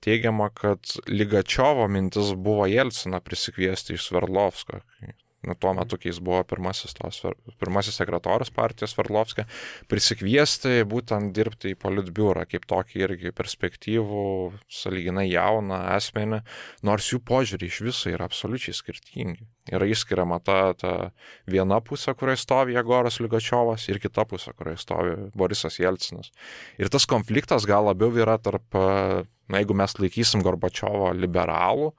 teigiama, kad Ligačiovo mintis buvo Jelciną prisikviesti iš Sverdlovsko. tuo metu, kai jis buvo pirmasis sekretorius partijos Sverdlovskio, prisikviesti būtent dirbti į politbiurą kaip tokį irgi perspektyvų, sąlyginai jauną asmenį, nors jų požiūrį iš viso yra absoliučiai skirtingi. Yra išskiriama ta viena pusė, kurioje stovi Jegoras Ligačiovas, ir kita pusė, kurioje stovi Borisas Jelcinas. Ir tas konfliktas gal labiau yra tarp, jeigu mes laikysim Gorbačiovo liberalų,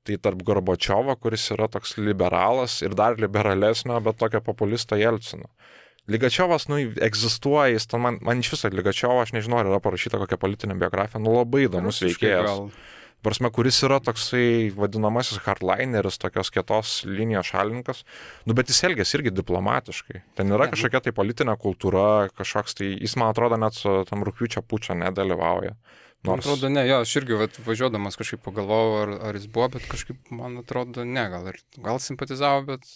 tai tarp Gorbačiovo, kuris yra toks liberalas ir dar liberalesnio, bet tokio populisto Jelcino. Ligačiovas, egzistuoja, jis ten, man iš viso Ligačiovo, aš nežinau, ar yra parašyta kokia politinė biografija, labai įdomus veikėjas. Prasme, kuris yra toksai vadinamasis hardlineris, tokios kietos linijos šalininkas, bet jis elgės irgi diplomatiškai. Ten yra kažkokia tai politinė kultūra, kažkoks tai, jis, man atrodo, net su tam rugpjūčio pučio nedalyvauja. Man atrodo, ne, jo, aš irgi važiuodamas kažkaip pagalvojau, ar jis buvo, bet kažkaip, man atrodo, ne, gal simpatizavo, bet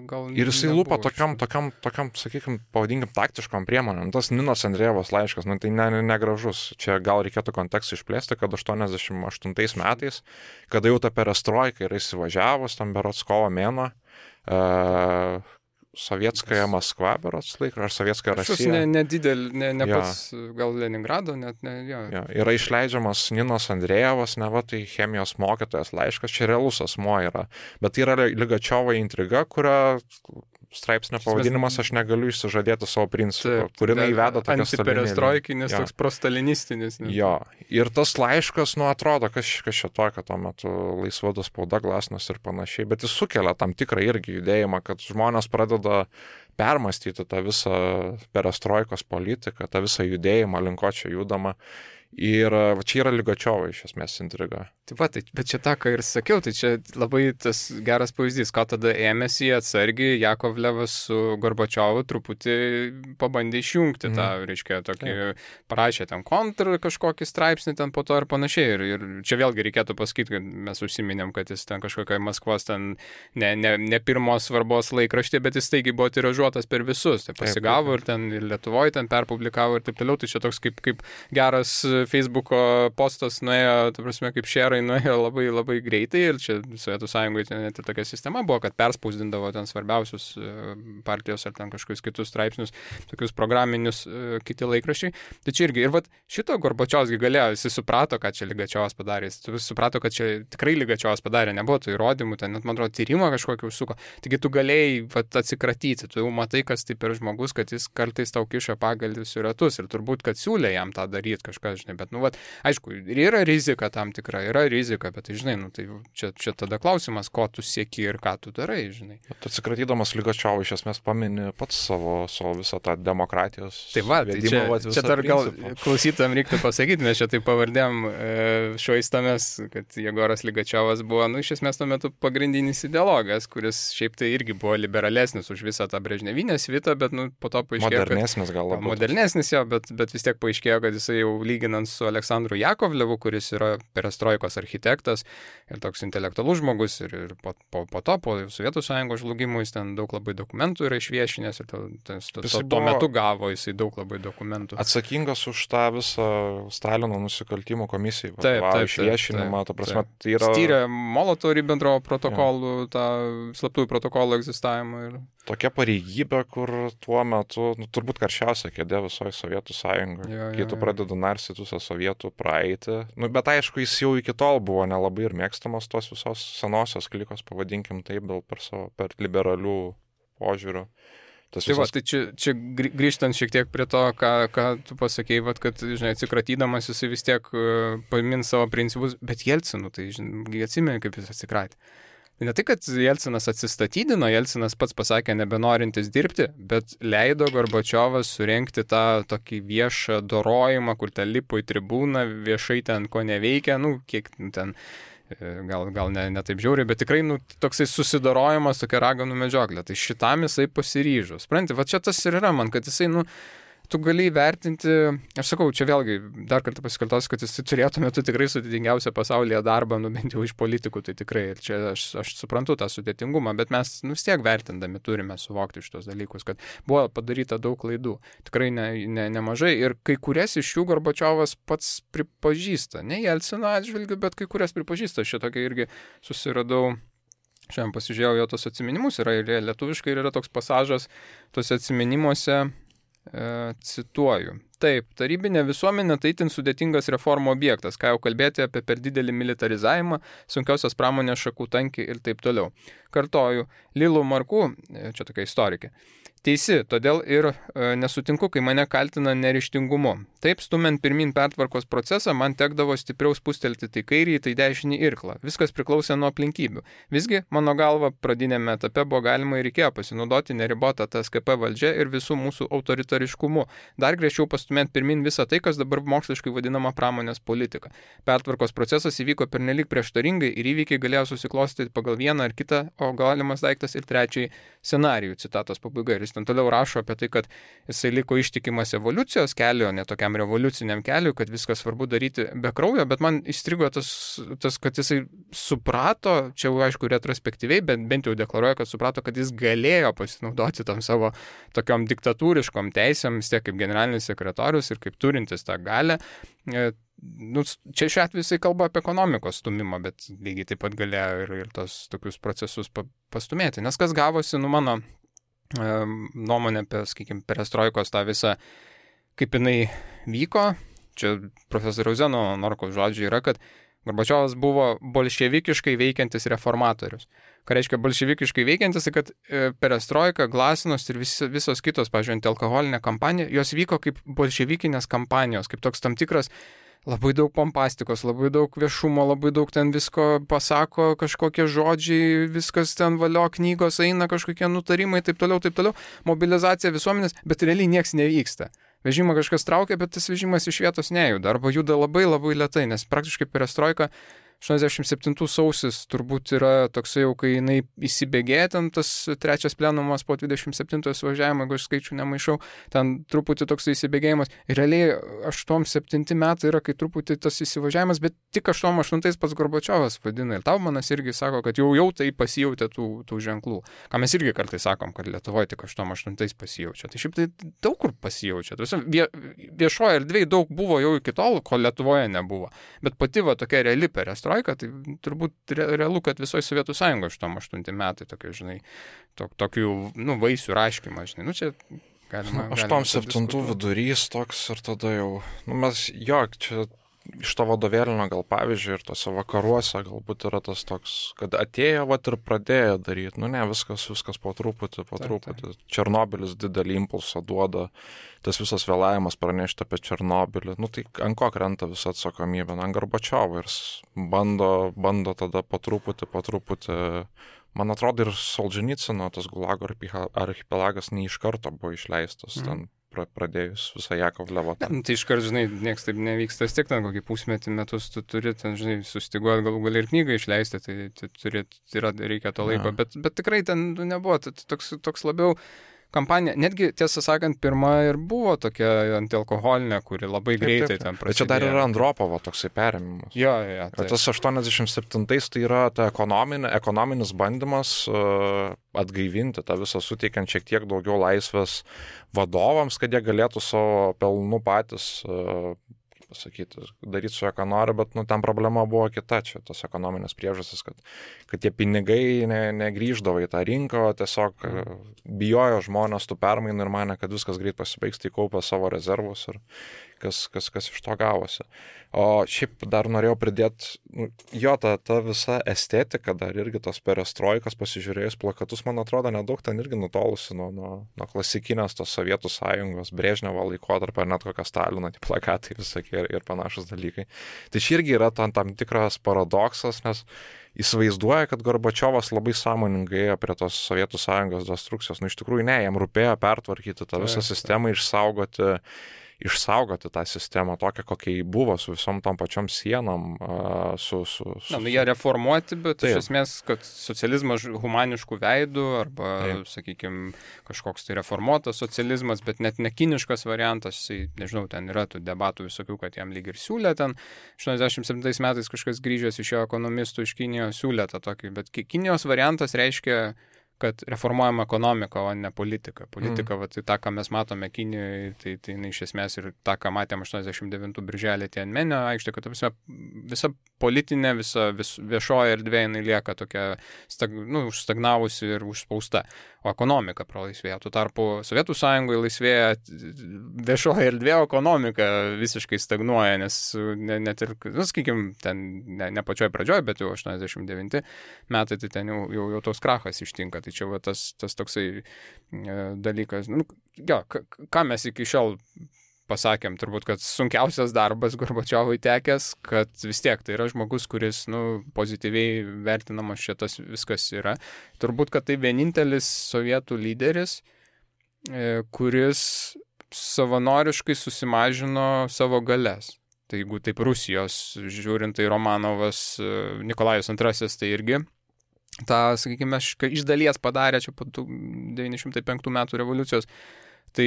gal... Ir jisai lupa tokiam, sakykime, pavadinkim, taktiškom priemonėm. Tas Ninos Andrejevos laiškas, tai negražus. Čia gal reikėtų kontekstą išplėsti, kad 88 metais, kada jau ta perestroika yra įsivažiavus, tam berods kovo mėnuo, Sovietskaja Maskva, berods laikra, ar Sovietskaja Rasija. Ne pats, gal Leningrado, net ne, jo. Yra išleidžiamas Ninos Andrejevas, tai chemijos mokytojas laiškas, čia realus asmuo yra. Bet tai yra Ligačiovo intriga, kurią straipsnio pavadinimas aš negaliu išsižadėti savo principų, kurį įveda tokias antiperestroikinis, toks prostalinistinis. Jo, ir tas laiškas, atrodo, kas čia tokio tuo metu laisvada spauda, Glasnost ir panašiai, bet jis sukelia tam tikrą irgi judėjimą, kad žmonės pradeda permastyti tą visą perestroikos politiką, tą visą judėjimą, link ko čia judama. Ir čia yra Ligačiovo iš esmės intriga. Taip pat, bet čia tą, ką ir sakiau, tai čia labai tas geras pavyzdys, ką tada ėmėsi atsargiai Jakovlevas su Gorbačiovu truputį pabandė išjungti tą, reiškia, tokį, parašė ten kontrą kažkokį straipsnį ten po to ir panašiai. Ir čia vėlgi reikėtų pasakyti, kad mes užsiminėm, kad jis ten kažkokia Maskvos ten ne pirmos svarbos laikraštė, bet jis taigi buvo tiražuotas per visus. Tai pasigavo ir ten ir Lietuvoje ten perpublikavo ir taip toliau. Tai čia toks kaip geras Facebooko postas nuėjo, ta prasme, kaip šerai nuėjo labai, labai greitai ir čia Sovietų Sąjungoje net ir tokia sistema buvo, kad perspausdindavo ten svarbiausius partijos ar ten kažkokius kitus straipsnius, tokius programinius kiti laikraščiai. Tai čia irgi, ir šito Gorbačiovas galėjo, jis suprato, ką čia Ligačiovas padarė, jis suprato, kad čia tikrai Ligačiovas padarė, nebuvo tų įrodymų, ten net, man atrodo, tyrimą kažkokį užsuko. Taigi tu galėjai atsikratyti, tu jau matai, kas tai per žmogus, kad jis kartais tau kiša pagalvius į ratus ir turbūt, kad siūlė jam tą daryti kažkas, bet, aišku, ir yra rizika tam tikra, bet, tai, žinai, tai čia tada klausimas, ko tu sieki ir ką tu darai, žinai. Atsikratydamas Ligačiovo iš esmės pamini pats savo visą tą demokratijos. Tai čia dar gal klausytam reiktų pasakyti, mes čia taip pavardėm švaistamės, kad Jegoras Ligačiovas buvo, iš esmės tuo metu pagrindinis ideologas, kuris šiaip tai irgi buvo liberalesnis už visą tą brežnevinę svitą, bet, po to paaiškėjo, modernesnis gal labiau. Modernesnis jo, bet vis tiek paaiškėjo, kad jisai jau lyginant su Aleksandru Jakovlevu, kuris yra perestroikos architektas ir toks intelektualus žmogus ir po to, po Sovietų Sąjungos žlugimų, jis ten daug labai dokumentų yra išviešinęs ir tuo metu gavo jisai daug labai dokumentų. Atsakingas už tą visą Stalino nusikaltimų komisijų išviešinimą, ta prasme, tai yra... Styrė Molotovo-Ribentropo protokolų, tą slaptųjų protokolų egzistavimą ir... Tokia pareigybė, kur tuo metu, turbūt karščiausia kėdė visoje Sovietų Sąjungoje, kai tu pradedi narstyti visą sovietų praeitį. Bet aišku, jis jau iki tol buvo nelabai ir mėgstamas tos visos senosios klikos, pavadinkim taip, per liberalių požiūrių. Tai čia grįžtant šiek tiek prie to, ką tu pasakėjai, kad, žinai, atsikratydamas jisai vis tiek pamins savo principus, bet Jelcinu, tai, žinai, atsimeni, kaip jis atsikratė. Ne tai, kad Jelcinas atsistatydino, Jelcinas pats pasakė nebenorintis dirbti, bet leido Gorbačiovas surengti tą tokį viešą dorojimą, kur ten lipo į tribūną, viešai ten ko neveikia, kiek ten, gal ne taip žiauriai, bet tikrai, toksai susidorojimas, tokia raganų medžioklė. Tai šitam jisai pasiryžo. Supranti, čia tas ir yra man, kad jisai, tu gali įvertinti, aš sakau, čia vėlgi dar kartą pasikartosiu, kad jis turėtų metu tikrai sudėtingiausią pasaulyje darbą, bent jau iš politikų, tai tikrai, ir čia aš suprantu tą sudėtingumą, bet mes vis tiek vertindami turime suvokti šitos dalykus, kad buvo padaryta daug klaidų, tikrai nemažai, ir kai kurias iš jų Gorbačiovas pats pripažįsta, ne Jelcino atžvilgiu, bet kai kurias pripažįsta, šitokia irgi susiradau Šiandien pasižiūrėjau jo tos atsiminimus, yra ir lietuviškai, ir yra toks pasažas tose atsiminimuose, cituoju. Taip, tarybinė visuomenė tai itin sudėtingas reformų objektas, ką jau kalbėti apie per didelį militarizavimą, sunkiausios pramonės šakų tankį ir taip toliau. Kartoju, Lilu Marku, čia tokia istorikė, teisi, todėl ir nesutinku, kai mane kaltina neryžtingumu. Taip, stumiant pirmin pertvarkos procesą, man tekdavo stipriau spustelti tai kairį, tai dešinį irklą. Viskas priklausė nuo aplinkybių. Visgi, mano galva, pradinėme etape buvo galima ir reikėjo pasinaudoti neribotą TSKP valdžią ir visų mūsų autoritariškumu. Dar griežčiau pastumėti pirmin visą tai, kas dabar moksliškai vadinama pramonės politika. Pertvarkos procesas įvyko pernelyg prieštaringai ir įvykiai galėjo susiklostyti pagal vieną ar kitą, o galimas daiktas ir trečiąjį scenarijų. Citatos pabaiga. Ir jis ten toliau rašo apie tai, kad jisai liko ištikimas evoliucijos keliu, ne tokiam revoliuciniam keliu, kad viskas svarbu daryti be kraujo, bet man įstrigo tas, kad jisai suprato, čia jau aišku retrospektyviai, bet bent jau deklaruoja, kad suprato, kad jis galėjo pasinaudoti tam savo tokiom diktatūriškom teisėm, vis tiek kaip generalinis sekretorius ir kaip turintis tą galę. Nu, čia šiuo atveju jisai kalba apie ekonomikos stumimą, bet lygiai taip pat galėjo ir tos tokius procesus pastumėti. Nes kas gavosi, nu mano nuomonė apie, sakykime, perestroikos tą visą, kaip jinai vyko, čia profesoriaus Zeno Norkaus žodžiai yra, kad Gorbačiovas buvo bolševikiškai veikiantis reformatorius. Ką reiškia bolševikiškai veikiantis, kad perestroika, glasnost ir visos kitos, pavyzdžiui, antialkoholinė kampanija, jos vyko kaip bolševikinės kampanijos, kaip toks tam tikras labai daug pompastikos, labai daug viešumo, labai daug ten visko pasako, kažkokie žodžiai, viskas ten valio, knygos eina, kažkokie nutarimai, taip toliau, mobilizacija visuomenės, bet realiai nieks nevyksta. Vežimą kažkas traukia, bet tas vežimas iš vietos nejuda, arba juda labai labai lėtai, nes praktiškai perestroika 87 sausis turbūt yra toksai jau, kai jinai įsibėgėja, ten tas trečias plenumas po 27 važiavimo, jeigu aš skaičių nemaišau, ten truputį toksai įsibėgėjimas. Ir realiai 8-7 metai yra, kai truputį tas įsivažiavimas, bet tik 8-8 pats Gorbačiovas vadina. Ir Taumanas irgi sako, kad jau tai pasijautė tų ženklų. Ką mes irgi kartais sakom, kad Lietuvoje tik 8-8 pasijaučia. Tai šiaip tai daug kur pasijaučia. Viešoje erdvėje daug buvo jau iki tol, ko Lietuvoje nebuvo. Bet pati va tokia reali perestroika, tai turbūt realu, kad visoje Sovietų Sąjungoje 8 metai tokie, žinai, tokių, nu, vaisių raškymą, žinai, nu, čia galima 8-7 vidurys toks ir tada jau, nu, mes, čia iš to vadovėlinio gal pavyzdžiui ir tose vakaruose galbūt yra tas toks, kad atėjo vat ir pradėjo daryti, nu ne, viskas po truputį. Černobylis didelį impulsą duoda, tas visas vėlavimas pranešti apie Černobylį, nu tai ant ko krenta visa atsakomybė, ant Gorbačiovo ir bando tada po truputį, man atrodo ir Solženicyno tas Gulago archipelagas ne iš karto buvo išleistas ten. Pradėjus visą Jakovlevo. Tai iškart, žinai, nieks taip nevyksta, vis tiek ten kokį pusmetį metus tu turi, ten, žinai, sustiguoti galų gali ir knygą išleisti, tai reikia to laiko, bet tikrai ten nebuvo, toks labiau kampanija, netgi, tiesą sakant, pirma ir buvo tokia antialkoholinė, kuri labai greitai ten prasidėjo. Čia dar yra Andropovo toksai perėmimas. Jo. Tai. Tas 87 tai yra ta ekonominis bandymas atgaivinti tą visą, suteikiant šiek tiek daugiau laisvės vadovams, kad jie galėtų savo pelnų patys pasakyti, daryti su ką nori, bet ten problema buvo kita, čia tos ekonominės priežastys, kad tie pinigai negrįždavo į tą rinką, o tiesiog bijojo žmonės tų permainų ir mane, kad viskas greit pasibaigs, tai kaupė savo rezervus ir kas iš to gavosi. O šiaip dar norėjau pridėti, jo, ta visa estetika dar irgi tos perestroikos, pasižiūrėjus plakatus, man atrodo, nedaug ten irgi nutolusi nuo klasikinės tos Sovietų Sąjungos, Brežnevo laikotarpio, net kokią Stalino plakatai visokie ir panašus dalykai. Tai čia irgi yra tam tikras paradoksas, nes įsivaizduoja, kad Gorbačiovas labai sąmoningai ėjo prie tos Sovietų Sąjungos destrukcijos. Iš tikrųjų ne, jam rūpėjo pertvarkyti tą visą sistemą, išsaugoti tą sistemą tokią, kokia jį buvo, su visom tom pačiom sienom. Jie reformuoti, bet iš esmės, kad socializmas humaniškų veidų, arba, sakykime, kažkoks tai reformuotas socializmas, bet net nekiniškas variantas, nežinau, ten yra tų debatų visokių, kad jam lyg ir siūlė ten. 87 metais kažkas grįžęs iš jo ekonomistų iš Kinijos siūlė tą tokį, bet Kinijos variantas reiškia kad reformuojama ekonomika, o ne politika. Politika, tai tą, ką mes matome Kinijoje, tai iš esmės ir tą, ką matėm 89 birželį Tianmenio aikštė, kad visa politinė, visa viešoji erdvė jinai lieka tokia užstagnavusi ir užspausta, o ekonomika pralaisvėja. Tuo tarpu Sovietų Sąjungoje laisvėja viešoji erdvė, o ekonomika visiškai stagnuoja, nes net ir, sakykime, ten ne pačioj pradžioj, bet jau 89 metai, tai ten jau tos krachas ištinka. Tai čia tas toksai dalykas. Ką mes iki šiol pasakėm, turbūt, kad sunkiausias darbas Gorbačiovui tekęs, kad vis tiek tai yra žmogus, kuris pozityviai vertinamas šitas viskas yra. Turbūt, kad tai vienintelis sovietų lyderis, kuris savanoriškai susimažino savo galias. Tai jeigu taip Rusijos žiūrint, tai Romanovas, Nikolajus II, tai irgi tą, sakykime, iš dalies padarė čia po 905 metų revoliucijos. Tai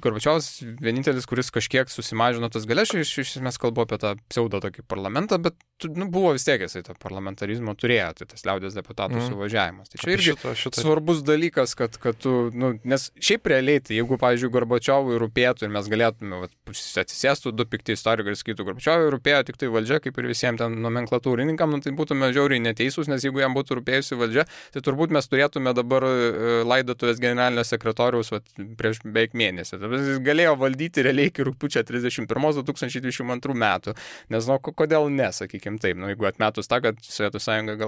Gorbačiovas vienintelis, kuris kažkiek susimažino tas galias, iš esmės kalbu apie tą pseudo tokį parlamentą, bet buvo vis tiek jisai to parlamentarizmo turėjo, tai tas liaudės deputatų suvažiavimas. Tai čia irgi svarbus dalykas, kad tu, nes šiaip realiai, tai jeigu, pavyzdžiui, Gorbačiovui rūpėtų ir mes galėtume atsisėstų du pikti istorikai ir sakytų, Gorbačiovui rūpėjo tik tai valdžia, kaip ir visiems ten nomenklatūrininkam, tai būtume žiauriai neteisūs, nes jeigu jam būtų rūpėjusi valdžia, tai turbūt mes turėtume dabar laidotuvės generalinio sekretoriaus prieš beveik mėnesį. Jis galėjo valdyti realiai iki rugpjūčio 31-2022 metų. Nežinau, kodėl ne, sakykim taip. Jeigu atmetus tą, kad Sovietų Sąjunga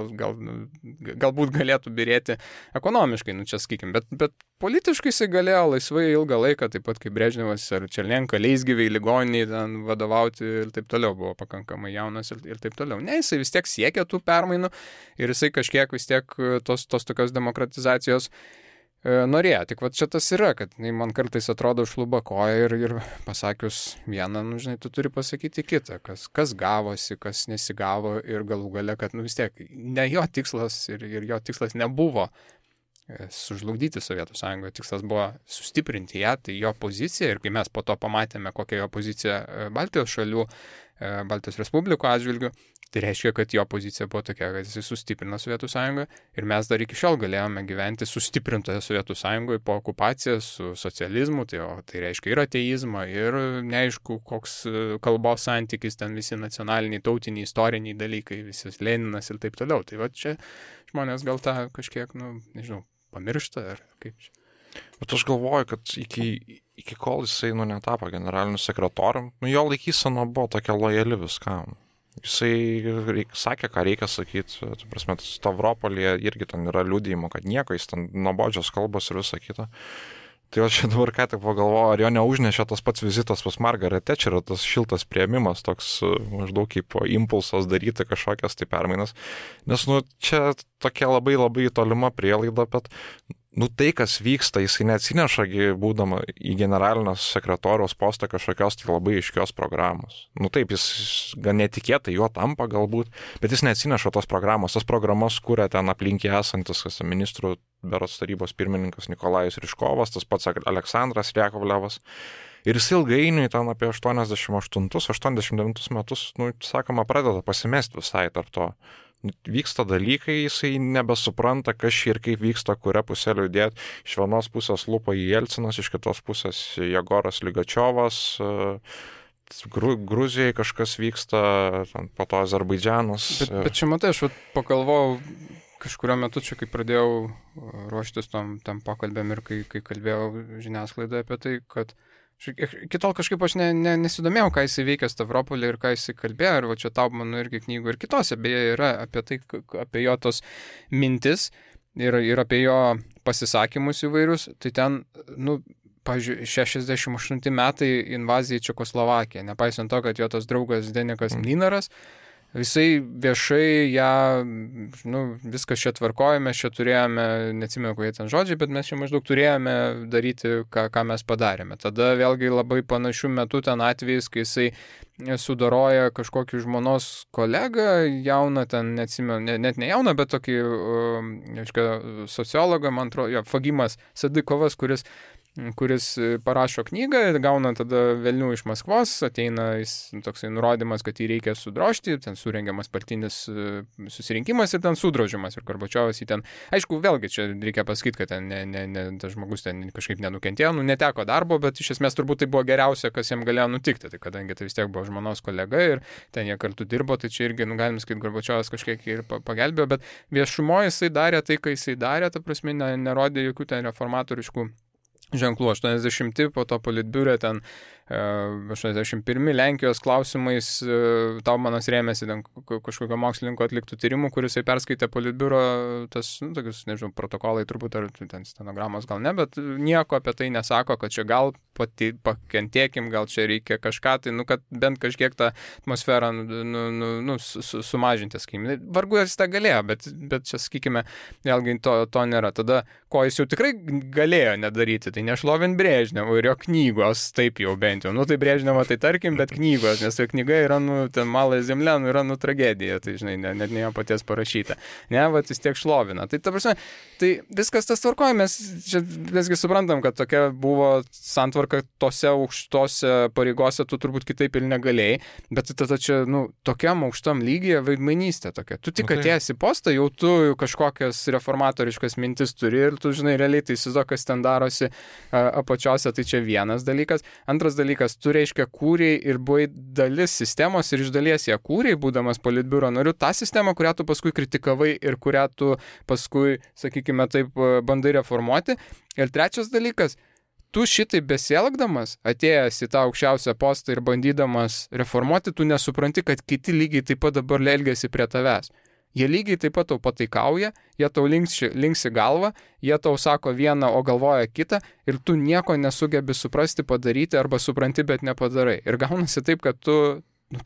galbūt galėtų birėti ekonomiškai, čia sakykim, bet politiškai jisai galėjo laisvai ilgą laiką, taip pat kaip Brežnevas ar Černienka, leisgyviai, ligoniniai ten vadovauti ir taip toliau, buvo pakankamai jaunas ir taip toliau. Ne, jisai vis tiek siekė tų permainų ir jisai kažkiek vis tiek tos tokios demokratizacijos norėjo. Tik čia tas yra, kad man kartais atrodo šluba koja ir pasakius vieną, žinai, tu turi pasakyti kitą, kas gavosi, kas nesigavo ir galų gale, kad vis tiek ne jo tikslas ir jo tikslas nebuvo sužlugdyti Sovietų Sąjungą, tikslas buvo sustiprinti ją, tai jo pozicija ir kai mes po to pamatėme, kokia jo pozicija Baltijos šalių, Baltijos Respublikų atžvilgių, tai reiškia, kad jo pozicija buvo tokia, kad jis sustiprino Sovietų Sąjungą ir mes dar iki šiol galėjome gyventi sustiprintoje Sovietų Sąjungoje po okupacijos su socializmu, tai reiškia ir ateizmą, ir neaišku, koks kalbos santykis, ten visi nacionaliniai, tautiniai, istoriniai dalykai, visas Leninas ir taip toliau. Tai čia žmonės gal tą kažkiek, nežinau, pamiršta ar kaip čia. Bet aš galvoju, kad iki kol jisai netapo generaliniu sekretorium, jo laikysena buvo tokia lojali viskam. Jisai sakė, ką reikia sakyti, prasme, Stavropolyje irgi ten yra liudijimo, kad nieko, jis ten nuobodžios kalbos ir visa kita. Tai aš čia dabar ką tik pagalvoju, ar jo neužnešė tas pats vizitas pas Margaret Thatcher, tas šiltas priėmimas, toks maždaug kaip impulsas daryti kažkokias tai permainas. Nes, čia tokia labai labai tolima prielaida, bet tai, kas vyksta, jisai neatsineša, būdama į generalinio sekretoriaus postą kažkokios tai labai aiškios programos. Taip, jis gan netikėtai juo tampa galbūt, bet jis neatsineša tos programos. Tas programas kuria ten aplinkiai esantis ministrų berods tarybos pirmininkas Nikolajus Ryžkovas, tas pats Aleksandras Jakovlevas. Ir jis ilgainiui ten apie 88-89 metus, sakoma, pradeda pasimesti visai tarp to. Vyksta dalykai, jisai nebesupranta, kas ir kaip vyksta, kuria pusė liūdėti. Iš vienos pusės lupa į Jelcinas, iš kitos pusės Jegoras Ligačiovas, Gruzijai kažkas vyksta, po to Azerbaidžianas. Bet čia matai, aš pagalvojau kažkurio metu, čia kai pradėjau ruoštis tam pokalbėm ir kai kalbėjau žiniasklaidoje apie tai, kad kitol kažkaip aš nesidomėjau, ką jisai veikia Stavropolį ir ką jisai kalbėjo, ir čia Taubmano irgi knygų ir kitose beje yra apie tai, apie jo tos mintis ir apie jo pasisakymus įvairius, tai ten, pavyzdžiui, 68 metai invazija į Čekoslovakiją, nepaisant to, kad jo tas draugas Denikas Mlynaras, visai viešai ją, viskas čia tvarkoja, mes čia turėjome, neatsimenu, kokie ten žodžiai, bet mes čia maždaug turėjome daryti, ką mes padarėme. Tada vėlgi labai panašių metų ten atvejais, kai jisai sudaroja kažkokį žmonos kolegą, jauną ten, neatsimenu, net ne jauną, bet tokį, sociologą, man atrodo, Fagimas Sadikovas, kuris kuris parašo knygą, gauna tada velnių iš Maskvos, ateina toksai nurodymas, kad jį reikia sudrožti, ten surengiamas partinis susirinkimas ir ten sudrožimas. Ir Gorbačiovas jį ten, aišku, vėlgi čia reikia pasakyti, kad ten tas žmogus ten kažkaip nenukentėjo, neteko darbo, bet iš esmės turbūt tai buvo geriausia, kas jam galėjo nutikti, tai kadangi tai vis tiek buvo žmonos kolega ir ten jie kartu dirbo, tai čia irgi, galim sakyti, Gorbačiovas kažkiek ir pagelbėjo, bet viešumoje jisai darė tai, ką jisai darė, ta prasme, nerodė jokių ten reformatoriškų ženklų. 80 po to politbiure ten 81 Lenkijos klausimais Taumanas rėmėsi ten kažkokio mokslininko atliktų tyrimų, kuris perskaitė politbiuro tas, tokius, nežinau, protokolai turbūt, ar ten stenogramos gal ne, bet nieko apie tai nesako, kad čia gal pakentėkim, gal čia reikia kažką, tai, kad bent kažkiek tą atmosferą sumažinti, sakykime. Vargu jis tą galėjo, bet čia, sakykime, vėlgi to nėra. Tada, ko jis jau tikrai galėjo nedaryti, tai nešlovint Brežnevo ir jo knygos, taip jau bent jau. Tai Brežnevo, tai tarkim, bet knygos, nes jo knyga yra, ten Malai Zemlė, yra, tragedija, tai, žinai, net ne jo paties parašyta. Ne, vat vis tiek šlovina. Tai, ta prasme, tai viskas tas tvarkoja, mes čia visgi suprantam, kad tokia buvo santvarka tose aukštose pareigose, tu turbūt kitaip ir negalėjai, bet tada čia, tokiam aukštam lygyje vaidmainystė tokia. Tu tik atėjęs į postą, jau tu kažkokias reformatoriškas mintis turi ir tu, žinai, realiai tai įsivaizduok, kas ten darosi apačiose, tai čia vienas dalykas. Antras dalykas, tu reiškia kūrei ir buvai dalis sistemos ir iš dalies ją kūrei, būdamas politbiuro nariu, tą sistemą, kurią tu paskui kritikavai ir kurią tu paskui, sakykime, taip bandai reformuoti. Ir trečias dalykas, tu šitai besielgdamas, atėjęs į tą aukščiausią postą ir bandydamas reformuoti, tu nesupranti, kad kiti lygiai taip pat dabar elgiasi prie tavęs. Jie lygiai taip pat tau pataikauja, jie tau linksi galvą, jie tau sako vieną, o galvoja kitą ir tu nieko nesugebi suprasti, padaryti arba supranti, bet nepadarai. Ir gaunasi taip, kad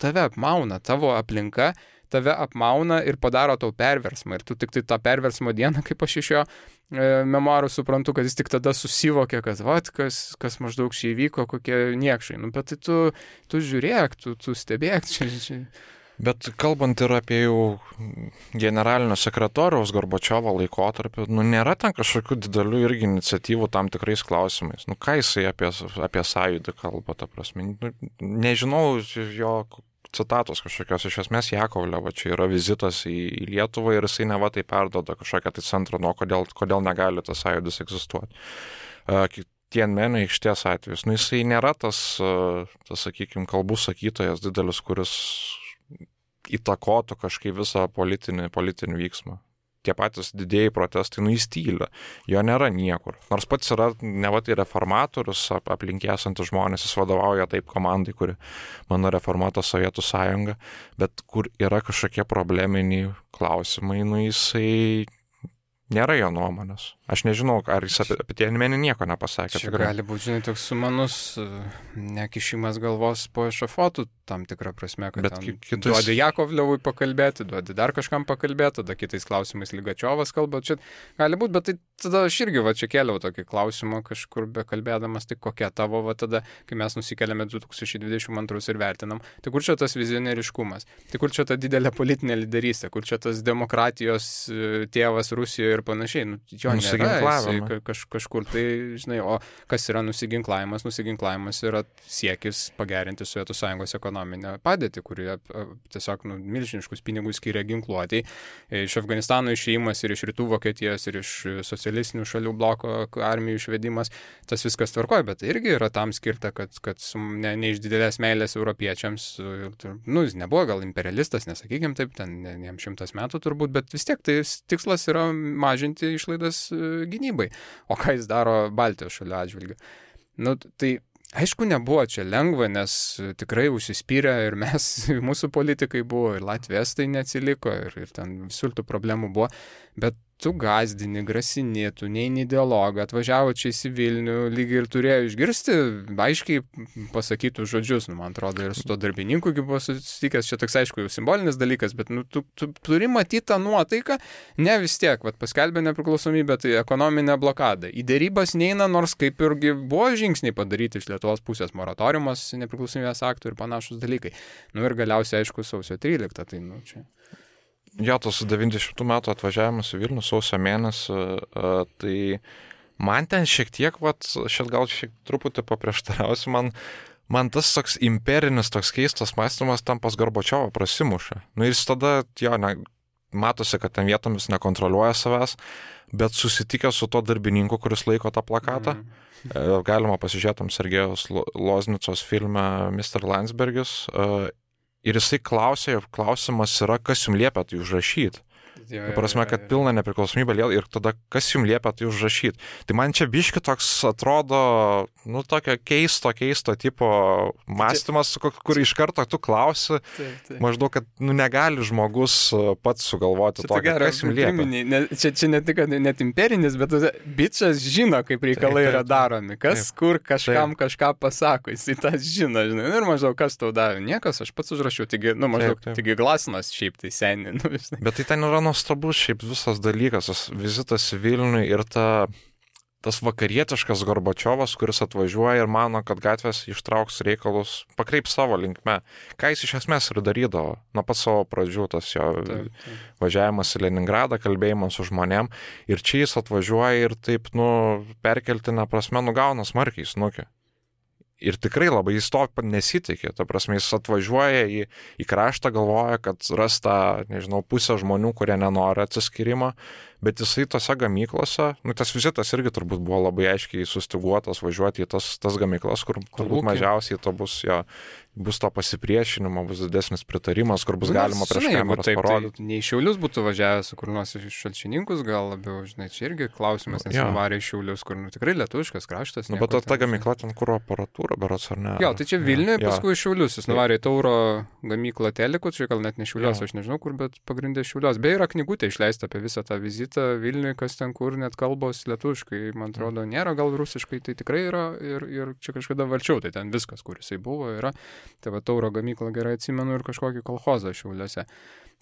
tave apmauna, tavo aplinka tave apmauna ir padaro tau perversmą. Ir tu tik tai tą perversmo dieną, kaip aš iš jo memoarų suprantu, kad jis tik tada susivokė, kad kas maždaug čia įvyko, kokie niekšai. Bet tai tu žiūrėk, tu stebėk čia. Bet kalbant ir apie jau generalinio sekretoriaus Gorbačiovo laikotarpį, nėra ten kažkokių didelių irgi iniciatyvų tam tikrais klausimais. Ką jisai apie sąjūdį kalba, ta prasme. Nežinau jo citatos kažkokios, iš esmės Jakovlevo, čia yra vizitas į Lietuvą ir jisai neva tai perduoda kažkokią tai centrą, kodėl negali tas sąjūdis egzistuoti. Tienmenio aikštės atvejus, jisai nėra tas, sakykime, kalbų sakytojas didelis, kuris įtakotų kažkaip visą politinį vyksmą. Tie patys didėjai protestai, jis tyli, jo nėra niekur. Nors pats yra neva tai reformatorius, aplink esantis žmonės, jis vadovauja taip komandai, kuri mano reformuota Sovietų sąjunga, bet kur yra kažkokie probleminiai klausimai, jisai nėra jo nuomonės. Aš nežinau, ar jis apie Tienmenį nieko nepasakė. Čia gali būti, žinai, toks sumanus nekišimas galvos po ešafotų tam tikrą prasme, kad duodi Jakovlevui pakalbėti, duodi dar kažkam pakalbėti, tada kitais klausimais Ligačiovas kalba. Čia gali būti, bet tai tada aš irgi čia kėliau tokį klausimą kažkur bekalbėdamas, tai kokia tavo tada, kai mes nusikeliame 2022 ir vertinam, tai kur čia tas vizionieriškumas, tai kur čia ta didelė politinė lyderystė, kur čia tas demokratijos tėvas Rusijoje ir panašiai. Jo nėra, kažkur tai, žinai, o kas yra nusiginklavimas? Nusiginklavimas yra siekis pagerinti Sovietų sąjungos ekonominę padėtį, kurie tiesiog milžiniškus pinigus skiria ginkluotei. Iš Afganistano išėjimas ir iš rytų Vokietijos ir iš socialistinių šalių bloko armijų išvedimas, tas viskas tvarkoja, bet irgi yra tam skirta, kad ne iš didelės meilės europiečiams, jis nebuvo gal imperialistas, nesakykim taip, ten jam 100 metų turbūt, bet vis tiek tai tikslas yra mažinti išlaidas gynybai. O ką jis daro Baltijos šalių atžvilgiu? Tai aišku, nebuvo čia lengva, nes tikrai užsispyrė ir mūsų politikai buvo, ir Latvijas tai neatsiliko, ir ten visur tų problemų buvo, bet tu gazdini, grasini, tu neini dialogą, atvažiavo čia į Vilnių, lygiai ir turėjo išgirsti, aiškiai pasakytų žodžius, man atrodo, ir su to darbininku buvo susitikęs, čia toks aišku jau simbolinis dalykas, bet tu turi matyti tą nuotaiką, ne vis tiek, paskelbė nepriklausomybę, tai ekonominė blokada. Į dėrybas neina, nors kaip irgi buvo žingsniai padaryti iš Lietuvos pusės, moratoriumas nepriklausomybės aktų ir panašus dalykai. Ir galiausiai, aišku, sausio 13, tai čia. Jo, tas 90 metų atvažiavimas į Vilnių sausio mėnesį, tai Man ten šiek tiek, gal šiek truputį paprieštarausiu, man tas toks imperinis, toks keistas mąstymas tam pas Gorbačiovą prasimuša. Nu jis tada, matosi, kad ten vietomis nekontroliuoja savęs, bet susitikęs su to darbininku, kuris laiko tą plakatą, galima pasižiūrėtum Sergejaus Loznicos filme Mr. Landsbergis, ir jisai klausimas yra, kas jums liepia tai užrašyti. Prasme, kad pilna nepriklausomybė ir tada kas jums liepia tai užrašyti. Tai man čia biški toks atrodo, tokio keisto tipo mąstymas, kur iš karto tu klausi, maždaug, kad negali žmogus pats sugalvoti to, kas jums liepia. Čia ne tik net imperinis, bet bičas žino, kaip reikalai yra daromi. Kas, kur, kažkam kažką pasako, jis tą žino, žinai. Ir maždaug, kas tau davė? Niekas, aš pats užrašiau. Taigi Glasnas šiaip tai seniai. Bet tai ten yra nuostabus šiaip visas dalykas, tas vizitas į Vilnių ir tas vakarietiškas Gorbačiovas, kuris atvažiuoja ir mano, kad gatvės ištrauks reikalus, pakreips savo linkme. Ką jis iš esmės ir darydavo nuo pat savo pradžių, tas jo važiavimas į Leningradą, kalbėjimas su žmonėm. Ir čia jis atvažiuoja ir taip, perkeltinę prasme nugauna smarkiai snukį. Ir tikrai labai jis to nesitikė, ta prasme, jis atvažiuoja į kraštą, galvoja, kad ras tą, pusę žmonių, kurie nenori atsiskyrimo, bet jisai tose gamyklose, tas vizitas irgi turbūt buvo labai aiškiai sustiguotas važiuoti į tas gamyklas, kur turbūt mažiausiai to bus to pasipriešinimo, bus didesnis pritarimas, kur bus galima prieš kameras parodyti. Tai ne į Šiaulius būtų važiavęs, kur nors iš Šalčininkus, gal labiau, čia irgi klausimas, nes nuvarė į Šiaulius, kur tikrai lietuviškas kraštas. Bet ta gamykla ten kuro aparatūra, berods ar ne? Jo, tai čia Vilniuje, paskui į Šiaulius, jis nuvarė į Tauro gamyklą Telikų, čia gal net ne Šiaulios, aš nežinau kur, bet pagrindė Šiaulios. Beje, yra knygutė išleista apie visą tą vizitą Vilniuje, kas ten kur, net kalbos lietuviškai, man atrodo, nėra, gal rusiškai, tai tikrai yra ir čia kažkada valčiau, tai ten viskas, kur jisai buvo, yra. Tai va Tauro gamyklą gerai atsimenu ir kažkokį kolchozą Šiauliuose.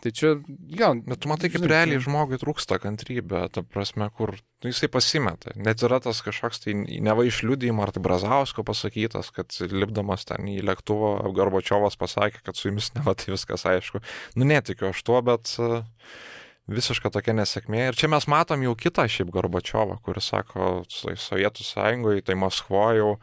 Tai čia, bet tu matai, kaip realiai žmogui trūksta kantrybė, ta prasme, kur jisai pasimeta. Net yra tas kažkoks tai neva išliudijimo, ar tai Brazausko pasakytas, kad lipdamas ten į lėktuvą, Gorbačiovas pasakė, kad su jumis neva tai viskas aišku. Netikiu aš tuo, bet visiška tokia nesėkmė. Ir čia mes matom jau kitą šiaip Gorbačiovą, kuris sako, Sovietų Sąjungoje, tai Maskvoje jau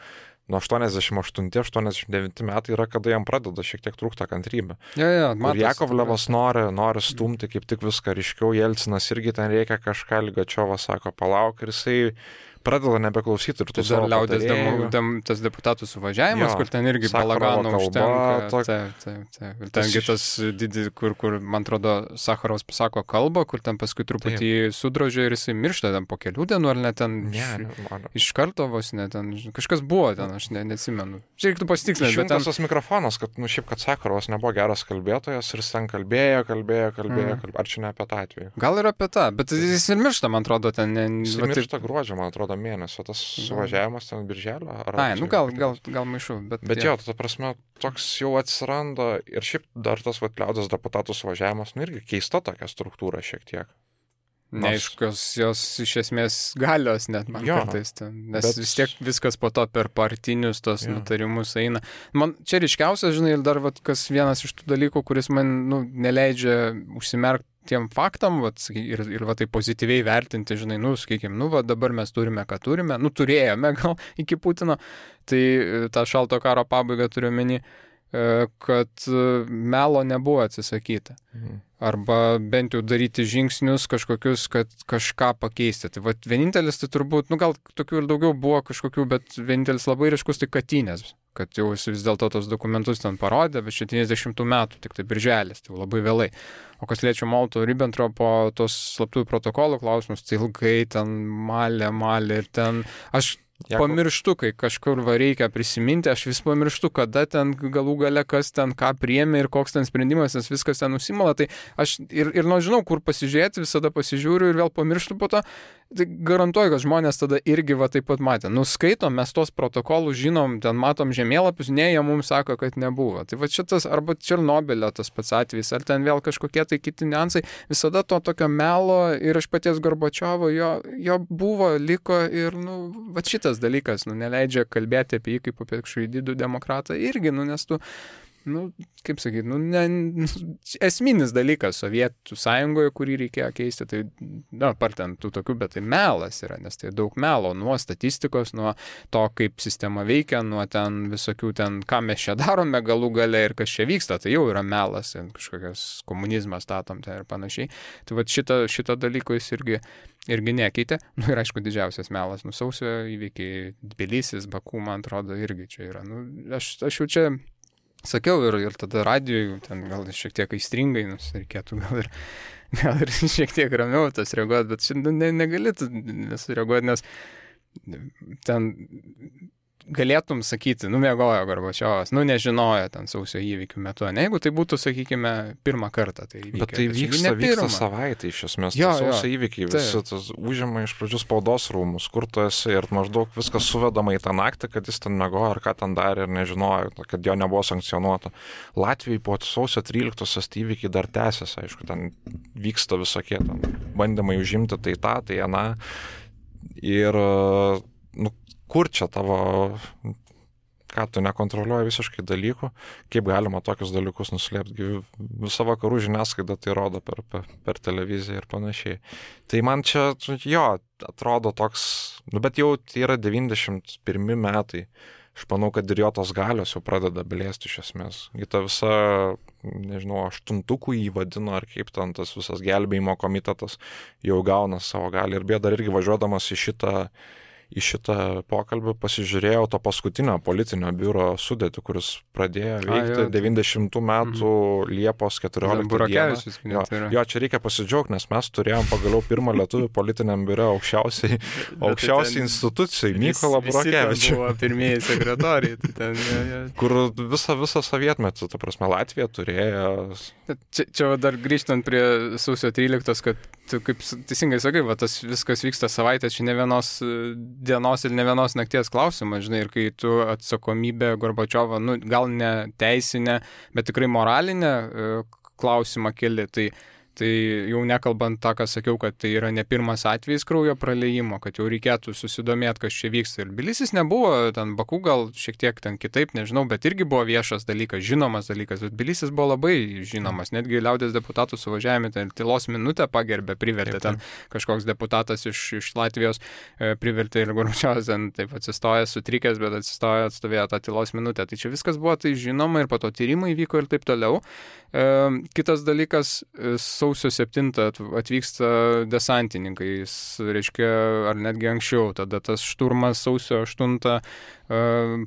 nuo 88-89 metai yra, kada jam pradeda šiek tiek trūkta kantrybė. Ir Jakovlevas nori stumti kaip tik viską ryškiau, Jelcinas irgi ten reikia kažką, Ligačiovas sako, palauk, ir jisai pradeda nebeklausyti ir tu savo patarėjų. Tas deputatų suvažiavimas, kur ten irgi balagano užtenka. Ir tengi tas didį, kur, man atrodo, Sacharovas pasako kalbą, kur ten paskui truputį sudrožė ir jisai miršta ten po kelių dienų, ar net ten iš karto vos net ten. Kažkas buvo ten, aš neatsimenu. Čia reiktų pasitikslinti. Išjungtas tas mikrofonas, kad šiaip, kad Sacharovas nebuvo geras kalbėtojas ir jis ten kalbėjo. Ar čia ne apie tą atvejį? Gal ir apie tą, bet jis ir miršta, man atrodo, ten. Jis miršta gruodžio, man atrodo, mėnesio, tas suvažiavimas ten birželio. Gal maišu. Bet jo, ta prasme, toks jau atsiranda ir šiaip dar tas liaudies deputatų suvažiavimas, irgi keista tokia struktūra šiek tiek. Neaiškios jos iš esmės galios net man kartais ten, nes vis tiek viskas po to per partinius tos nutarimus eina. Man čia ryškiausias, žinai, ir dar kas vienas iš tų dalykų, kuris man neleidžia užsimerkti tiem faktam, ir tai pozityviai vertinti, žinai, sakykime, dabar mes turime, ką turime, turėjome gal iki Putino, tai tą šalto karo pabaigą turiu omeny, kad melo nebuvo atsisakyta. Arba bent jau daryti žingsnius kažkokius, kad kažką pakeisti. Tai vienintelis, tai turbūt, gal tokių ir daugiau buvo kažkokių, bet vienintelis labai ryškus tai Katynės, kad jau jis vis dėlto tos dokumentus ten parodė, bet 70 metų, tik tai birželis, tai labai vėlai. O kas liečia Molotovo-Ribbentropo tos slaptųjų protokolų klausimus, tai ilgai ten malė ir ten aš pamirštu, kai kažkur reikia prisiminti, aš vis pamirštu, kada ten galų gale kas ten ką priėmė ir koks ten sprendimas, nes viskas ten nusimala, tai aš ir žinau, kur pasižiūrėti, visada pasižiūriu ir vėl pamirštu po to, tai garantuoju, kad žmonės tada irgi taip pat matė. Skaitom, mes tos protokolus žinom, ten matom žemėlapius, ne, jie mums sako, kad nebuvo. Tai šitas, arba Černobylio tas pats atvejis, ar ten vėl kažkokie tai kiti niuansai, visada to tokio melo ir iš paties Gorbačiovo jo buvo, liko ir, šitas dalykas, neleidžia kalbėti apie jį kaip apie kažkokį didų demokratą irgi, nes tu nu, kaip sakyti, esminis dalykas Sovietų sąjungoje, kurį reikėjo keisti, tai, apart ten tų tokių, bet tai melas yra, nes tai daug melo, nuo statistikos, nuo to, kaip sistema veikia, nuo ten visokių ten, ką mes čia darome galų gale ir kas čia vyksta, tai jau yra melas, kažkokias komunizmas statom ten ir panašiai. Tai va šito dalyko jis irgi nekeitė. Nu ir aišku, didžiausias melas, sausio įvykiai, Tbilisis, Baku, man atrodo, irgi čia yra. Nu, aš jau čia sakiau ir tada radijoj, ten gal šiek tiek aistringai, reikėtų gal ir šiek tiek ramiau tas reaguoti, bet šiandien negali nesureaguoti, nes ten galėtum sakyti, miegojo Gorbačiovas, nežinojo ten sausio įvykių metu, ne, jeigu tai būtų, sakykime, pirmą kartą tai įvykiai. Bet tai vyksta savaitę iš esmės, sausio įvykiai, visi tas užima iš pradžių spaudos rūmus, kur tu esi ir maždaug viskas suvedama į tą naktį, kad jis ten miegojo ar ką ten darė ir nežinojo, kad jo nebuvo sankcionuota. Latvijai po sausio 13-osios įvykiai dar tęsiasi, aišku, ten vyksta visokie ten bandymai užimti tai tą, tai aną ir kur čia tavo, ką tu nekontroliuoji visiškai dalykų, kaip galima tokius dalykus nuslėpti. Visa vakarų žiniasklaida tai rodo per televiziją ir panašiai. Tai man čia, atrodo toks, bet jau tai yra 91 metai. Aš manau, kad ir jo tos galios jau pradeda blėsti iš esmės. Į tą visą, nežinau, aštuntukų įvadino, ar kaip ten tas visas gelbėjimo komitetas jau gauna savo galią. Ir dar irgi važiuodamas į šitą pokalbį pasižiūrėjau to paskutinio politinio biuro sudėtį, kuris pradėjo veikti 90 metų Liepos 14 dieną. Jo, čia reikia pasidžiaugti, nes mes turėjom pagaliau pirmą lietuvių politiniam biure aukščiausiai institucijai, Mykolą Burokevičių. Buvo pirmieji sekretoriai. Kur visą sovietmetį, ta prasme, Latvija turėjo. Čia dar grįžtant prie sausio 13, kad tu kaip teisingai sakai, tas viskas vyksta savaitę, čia ne vienos dienos ir ne vienos nakties klausimas, žinai, ir kai tu atsakomybę Gorbačiovo, gal ne teisinę, bet tikrai moralinę klausimą keli, tai jau nekalbant tą, ką sakiau, kad tai yra ne pirmas atvejis kraujo praliejimo, kad jau reikėtų susidomėti, kas čia vyksta. Ir Tbilisis nebuvo, ten Baku gal šiek tiek ten kitaip, nežinau, bet irgi buvo viešas dalykas, žinomas dalykas. Bet Tbilisis buvo labai žinomas, netgi liaudės deputatų suvažiavime, ten tylos minutę pagerbė, privertė ten kažkoks deputatas iš Latvijos, privertė ir Gorbačiovas ten taip atsistojęs, sutrikęs, bet atstovėjo tą tylos minutę. Tai čia viskas buvo tai žinoma ir po to tyrimai vyko ir taip toliau. Kitas dalykas, sausio 7 atvyksta desantininkai, reiškia, ar netgi anksčiau, tada tas šturmas sausio 8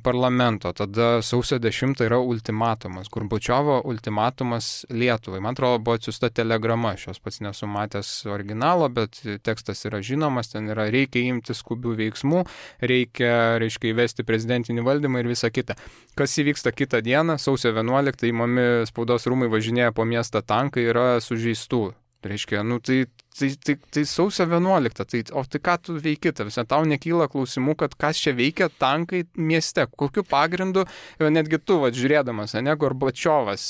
parlamento, tada sausio 10 yra ultimatumas, Gorbačiovo ultimatumas Lietuvai. Man atrodo, buvo atsiųsta telegrama, aš jos pats nesu matęs originalo, bet tekstas yra žinomas, ten yra reikia imti skubių veiksmų, reikia įvesti prezidentinį valdymą ir visa kita. Kas įvyksta kitą dieną, sausio 11 įmami spaudos rūmai važinėja po miestą tankai, yra sužeistų. Reiškia, tai sausio 11, o tai ką tu veiki, tau nekyla klausimų, kad kas čia veikia tankai mieste, kokiu pagrindu, netgi tu, žiūrėdamas, Gorbačiovas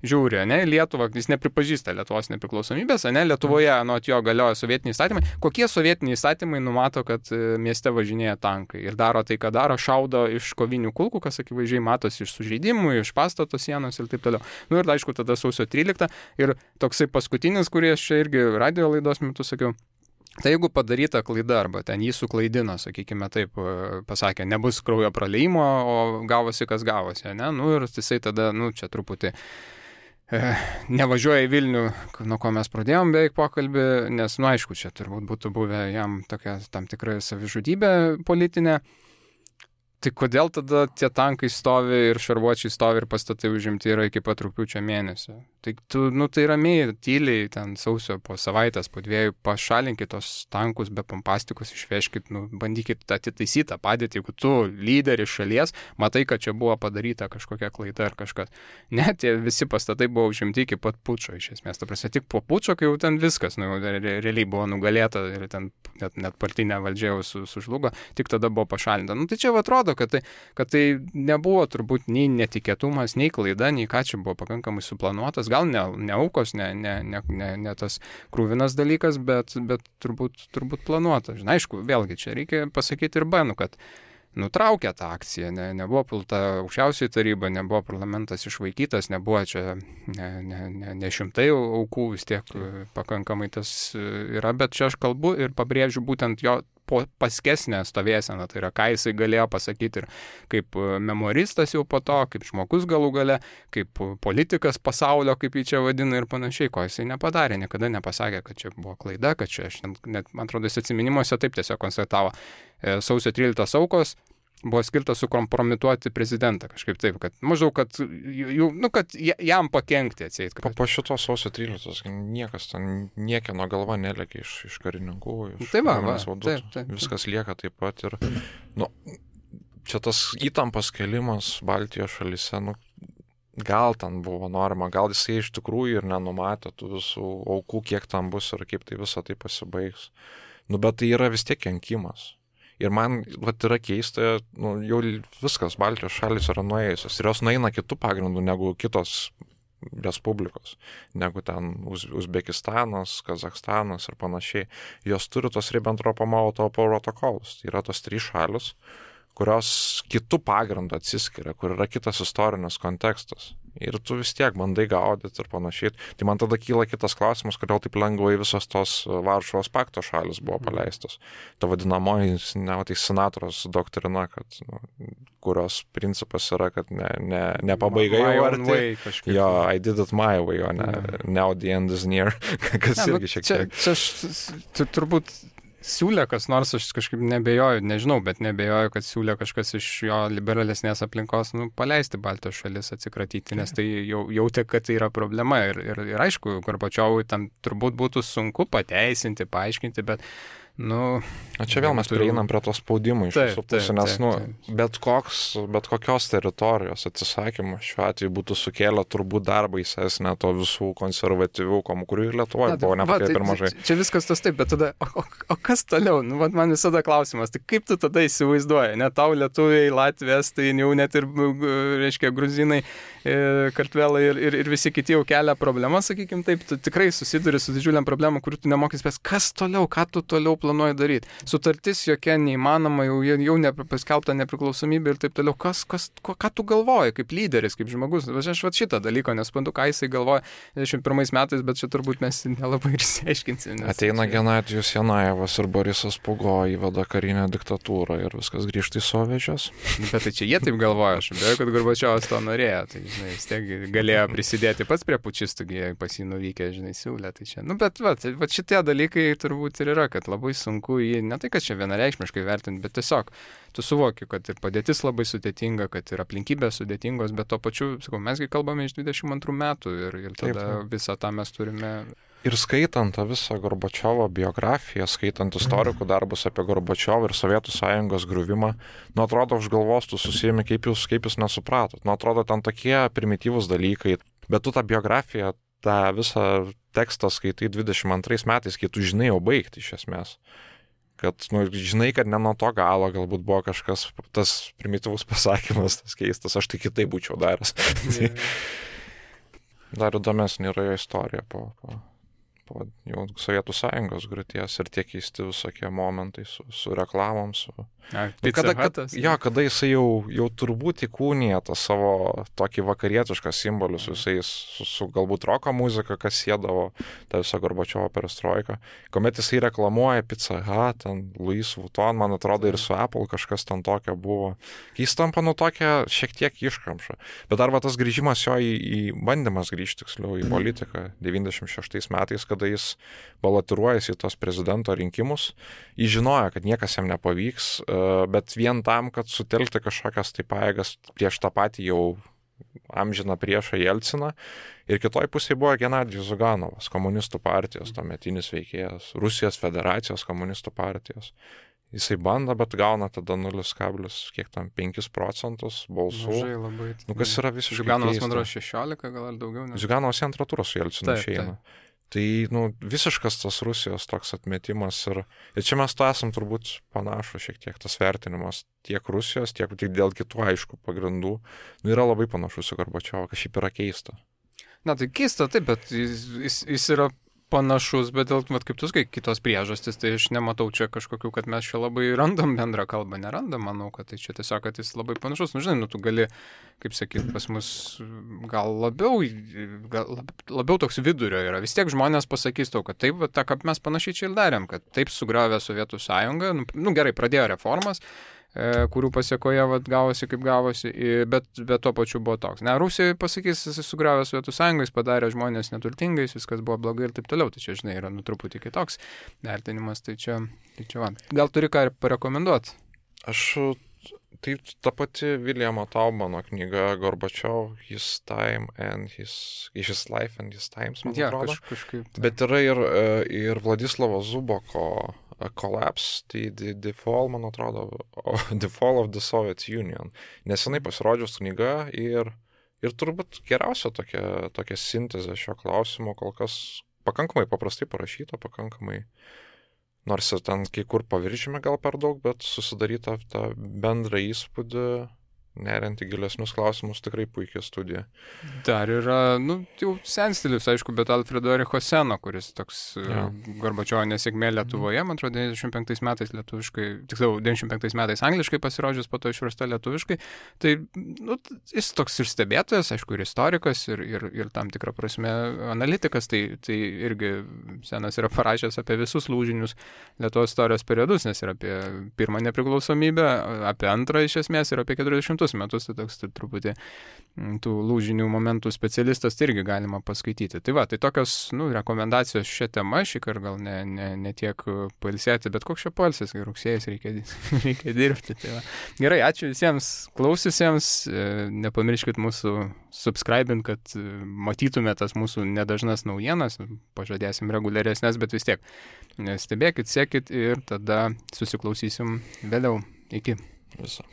žiūri, Lietuvą, jis nepripažįsta Lietuvos nepriklausomybės, Lietuvoje, anot jo galioja sovietiniai įstatymai, kokie sovietiniai įstatymai numato, kad mieste važinėja tankai ir daro tai, ką daro, šaudo iš kovinių kulkų, kas akivaizdžiai matosi iš sužeidimų, iš pastato sienos ir taip toliau. Ir aišku, tada sausio 13 ir toksai paskutinis, kurį aš čia irgi radio laidos metu sakiau, tai jeigu padaryta klaida arba ten jį suklaidino, sakykime taip, pasakė, nebus kraujo praliejimo, o gavosi, kas gavosi, ir jisai tada, čia truputį nevažiuoja į Vilnių, nuo ko mes pradėjom beveik pokalbį, nes, aišku, čia turbūt būtų buvę jam tokia tam tikra savižudybė politinė. Tai kodėl tada tie tankai stovi ir šarvuočiai stovi ir pastatai užimti yra iki pat rugpjūčio mėnesio? Tai tai ramiai, tyliai, ten sausio po savaitės, po 2 pašalinkit tos tankus be pompastikos, išveškit, bandykit atitaisyti tą padėtį, jeigu tu lyderis šalies, matai, kad čia buvo padaryta kažkokia klaida ar kažkas. Ne, tie visi pastatai buvo užimti iki pat pučo, iš esmės. Ta prasme, tik po pučo, kai jau ten viskas, realiai buvo nugalėta ir ten net partinė valdžia jau sužlugo, tik tada buvo pašalinta. Tai čia atrodo, kad tai nebuvo turbūt nei netikėtumas, nei klaida, nei ką čia buvo pakankamai suplanuotas. Gal ne aukos, ne tas krūvinas dalykas, bet turbūt planuotas. Aišku, vėlgi čia reikia pasakyti ir kad nutraukė tą akciją, nebuvo pulta aukščiausioji taryba, nebuvo parlamentas išvaikytas, nebuvo čia ne šimtai aukų, vis tiek pakankamai tas yra, bet čia aš kalbu ir pabrėžiu būtent jo paskesnę stovėseną, tai yra, ką jisai galėjo pasakyti ir kaip memoristas jau po to, kaip žmogus galų gale, kaip politikas pasaulio, kaip jį čia vadina ir panašiai, ko jisai nepadarė, niekada nepasakė, kad čia buvo klaida, kad čia, net, man atrodo, jis atsiminimuose taip tiesiog konstatavo, sausio 13 aukos buvo skirtas sukompromituoti prezidentą, kažkaip taip, kad maždaug, kad jam pakenkti atseit. Po šito sausio 13 niekas ten niekieno galva nelėkia iš karininkų, iš vadų. Taip. Viskas lieka taip pat ir, čia tas įtampas kelimas Baltijos šalyse, gal ten buvo norma, gal jisai iš tikrųjų ir nenumatė tų visų aukų, kiek tam bus ir kaip tai visą tai pasibaigs. Bet tai yra vis tiek kenkimas. Ir man yra keista, jau viskas, Baltijos šalis yra nuėjusios. Ir jos nueina kitų pagrindų negu kitos respublikos, negu ten Uzbekistanas, Kazakstanas ir panašiai. Jos turi tos Ribbentropo-Molotovo protokolus. Tai yra tos 3 šalis, kurios kitų pagrindų atsiskiria, kur yra kitas istorinis kontekstas. Ir tu vis tiek bandai gaudyti ir panašiai. Tai man tada kyla kitas klausimas, kodėl taip lengvai visos tos Varšuvos pakto šalis buvo paleistos. Ta vadinamoji senatoriaus doktrina, kad, kurios principas yra, kad ne pabaiga jau arti. Jo, I did it my way, o ne now the end is near. Kas irgi šiek tiek. Čia turbūt siūlė kas nors, aš kažkaip nebejoju, nežinau, bet nebejoju, kad siūlė kažkas iš jo liberalesnės aplinkos, paleisti Baltijos šalis, atsikratyti, nes tai jautė, kad tai yra problema ir aišku, Gorbačiovui tam turbūt būtų sunku pateisinti, paaiškinti, bet čia vėl mes prieinam prie to spaudimo iš visų pusių, nes bet kokios teritorijos atsisakymas šiuo atveju būtų sukėlę turbūt dar baisesnę to visų konservatyvių, kurių ir Lietuvoje buvo nepakai per mažai. Čia viskas tas taip, bet tada, o kas toliau? Man visada klausimas, tai kaip tu tada įsivaizduoji? Net tau lietuviai, Latvijas, tai jau net ir, reiškia, gruzinai, kartvelai ir visi kiti jau kelia problemą, sakykim taip, tu tikrai susiduri su didžiuliam problemom, kurių tu nemokys spės. Kas toliau? Ką tu toliau planuoji daryti? Sutartis jokia neįmanoma, jau paskelbta nepriklausomybė ir taip toliau. Ką tu galvoji kaip lyderis, kaip žmogus? Aš šitą dalyką nesuprantu, ką jisai galvoja 21 metais, bet čia turbūt mes nelabai ir išsiaiškinsim. Ateina Genadijus Janajevas ir Borisas Pugo įveda karinę diktatūrą ir viskas grįžta į soviečius. Bet tai čia jie taip galvoja, aš beje, kad Gorbačiovas to norėjo, tai vis tiek galėjo prisidėti pats prie pučistų, pas jį nuvykę, siūlė. Tai čia. Bet šitie dalykai turbūt ir yra, kad labai sunku jį, ne tai, kad čia vienareikšmiškai vertinti, bet tiesiog tu suvoki, kad ir padėtis labai sudėtinga, kad ir aplinkybės sudėtingos, bet to pačiu, mesgi kalbame iš 22 metų ir tada visą tą mes turime. Ir skaitant tą visą Gorbačiovo biografiją, skaitant istorikų darbus apie Gorbačiovą ir Sovietų sąjungos griuvimą, atrodo, už galvos tu susijami, kaip jūs nesupratot. Atrodo, ten tokie primityvūs dalykai, bet tu tą biografiją, tą visą tekstą skaitai 22 metais, kai tu žinai jau baigti iš esmės. Kad, žinai, kad ne nuo to galo galbūt buvo kažkas, tas primityvus pasakymas, tas keistas, aš tai kitaip būčiau daręs. Dar įdomesnė yra jo istorija po jau Sovietų sąjungos griūties ir tie keisti visokie momentai su reklamom, kada jisai jau turbūt įkūnija tą savo tokį vakarietišką simbolių su galbūt roko muzika, kas siedavo tą visą Gorbačiovo perestroiką. Kuomet jisai reklamuoja Pizza Hut, ten Louis Vuitton, man atrodo ir su Apple kažkas ten tokio buvo. Jis tampa tokia šiek tiek iškamša. Bet dar tas grįžimas jo į bandymas grįžti, tiksliau, į politiką 96 metais, kada jis balotiruojasi į tos prezidento rinkimus. Jis žinojo, kad niekas jam nepavyks, bet vien tam, kad sutelkti kažkokias tai pajėgas prieš tą patį jau amžiną priešą Jelciną. Ir kitoj pusėje buvo Genadijus Ziuganovas, komunistų partijos, tuometinis veikėjas, Rusijos federacijos komunistų partijos. Jisai bando, bet gauna tada 0,5 procentus balsų. Mažai labai. Kas yra visiškai Ziuganovas, man atrodo, 16 gal ar daugiau. Ziuganovas į antrą turą su Jelcinu išeina. Tai, visiškas tas Rusijos toks atmetimas ir čia mes to esam turbūt panašu šiek tiek tas vertinimas tiek Rusijos, tiek dėl kitų aišku pagrindų. Yra labai panašus į Gorbačiovą, kas šiaip yra keista. Na, tai keista, taip, bet jis yra panašus, bet dėl, kaip tu sakai, kitos priežastys, tai aš nematau čia kažkokių, kad mes čia labai randam bendrą kalbą, nerandam, manau, kad tai čia tiesiog, kad jis labai panašus. Nu, žinai, tu gali, kaip sakyti, pas mus gal labiau toks vidurio yra. Vis tiek žmonės pasakys tau, kad taip, tą, kaip mes panašiai čia ir darėm, kad taip sugriovė Sovietų sąjungą, nu gerai, pradėjo reformas, kurių pasiekoje gavosi kaip gavosi, bet tuo pačiu buvo toks. Ne, Rusija pasakys, jis sugriovė Sovietų sąjungą, jis padarė žmonės neturtingais, viskas buvo blogai ir taip toliau. Tai čia, žinai, yra truputį kitoks vertinimas. Tai čia va. Gal turi ką rekomenduoti? Tai ta pati Viljamo Taubmano knyga Gorbačiov, His Time and His Life and His Times, man atrodo. Kažkaip. Bet yra ir Vladislavo Zuboko Collapse, tai the Fall, man atrodo, The Fall of the Soviet Union. Nesenai pasirodžius knyga ir turbūt geriausia tokia sintezė šio klausimo, kol kas pakankamai paprastai parašyta, pakankamai, nors ir ten kai kur paviršime gal per daug, bet susidaryta tą bendrą įspūdį, neriant į gilesnius klausimus, tikrai puikia studija. Dar yra, jau senstilis, aišku, bet Alfredo Ericho Seno, kuris toks Gorbačiovo nesėkmė Lietuvoje, man atrodo, 95 metais lietuviškai, tiksliau, 95 metais angliškai pasirodžius, po to išversta lietuviškai. Tai, jis toks ir stebėtojas, aišku, ir istorikas, ir tam tikrą prasme analitikas, tai irgi Senas yra parašęs apie visus lūžinius Lietuvos istorijos periodus, nes ir apie pirmą nepriklausomybę, apie antrą iš esmės ir apie 40 metus, tai toks truputį tų lūžinių momentų specialistas, tai irgi galima paskaityti. Tai va, tai tokios rekomendacijos šią temą, šįkart gal ne tiek pailsėti, bet koks čia pailsis, kai rugsėjas reikia dirbti. Tai va. Gerai, ačiū visiems klausiusiems, nepamirškit mūsų subscribint, kad matytume tas mūsų nedažnas naujienas, pažadėsim reguliaresnės, bet vis tiek stebėkit, sekit ir tada susiklausysim vėliau. Iki. Viso.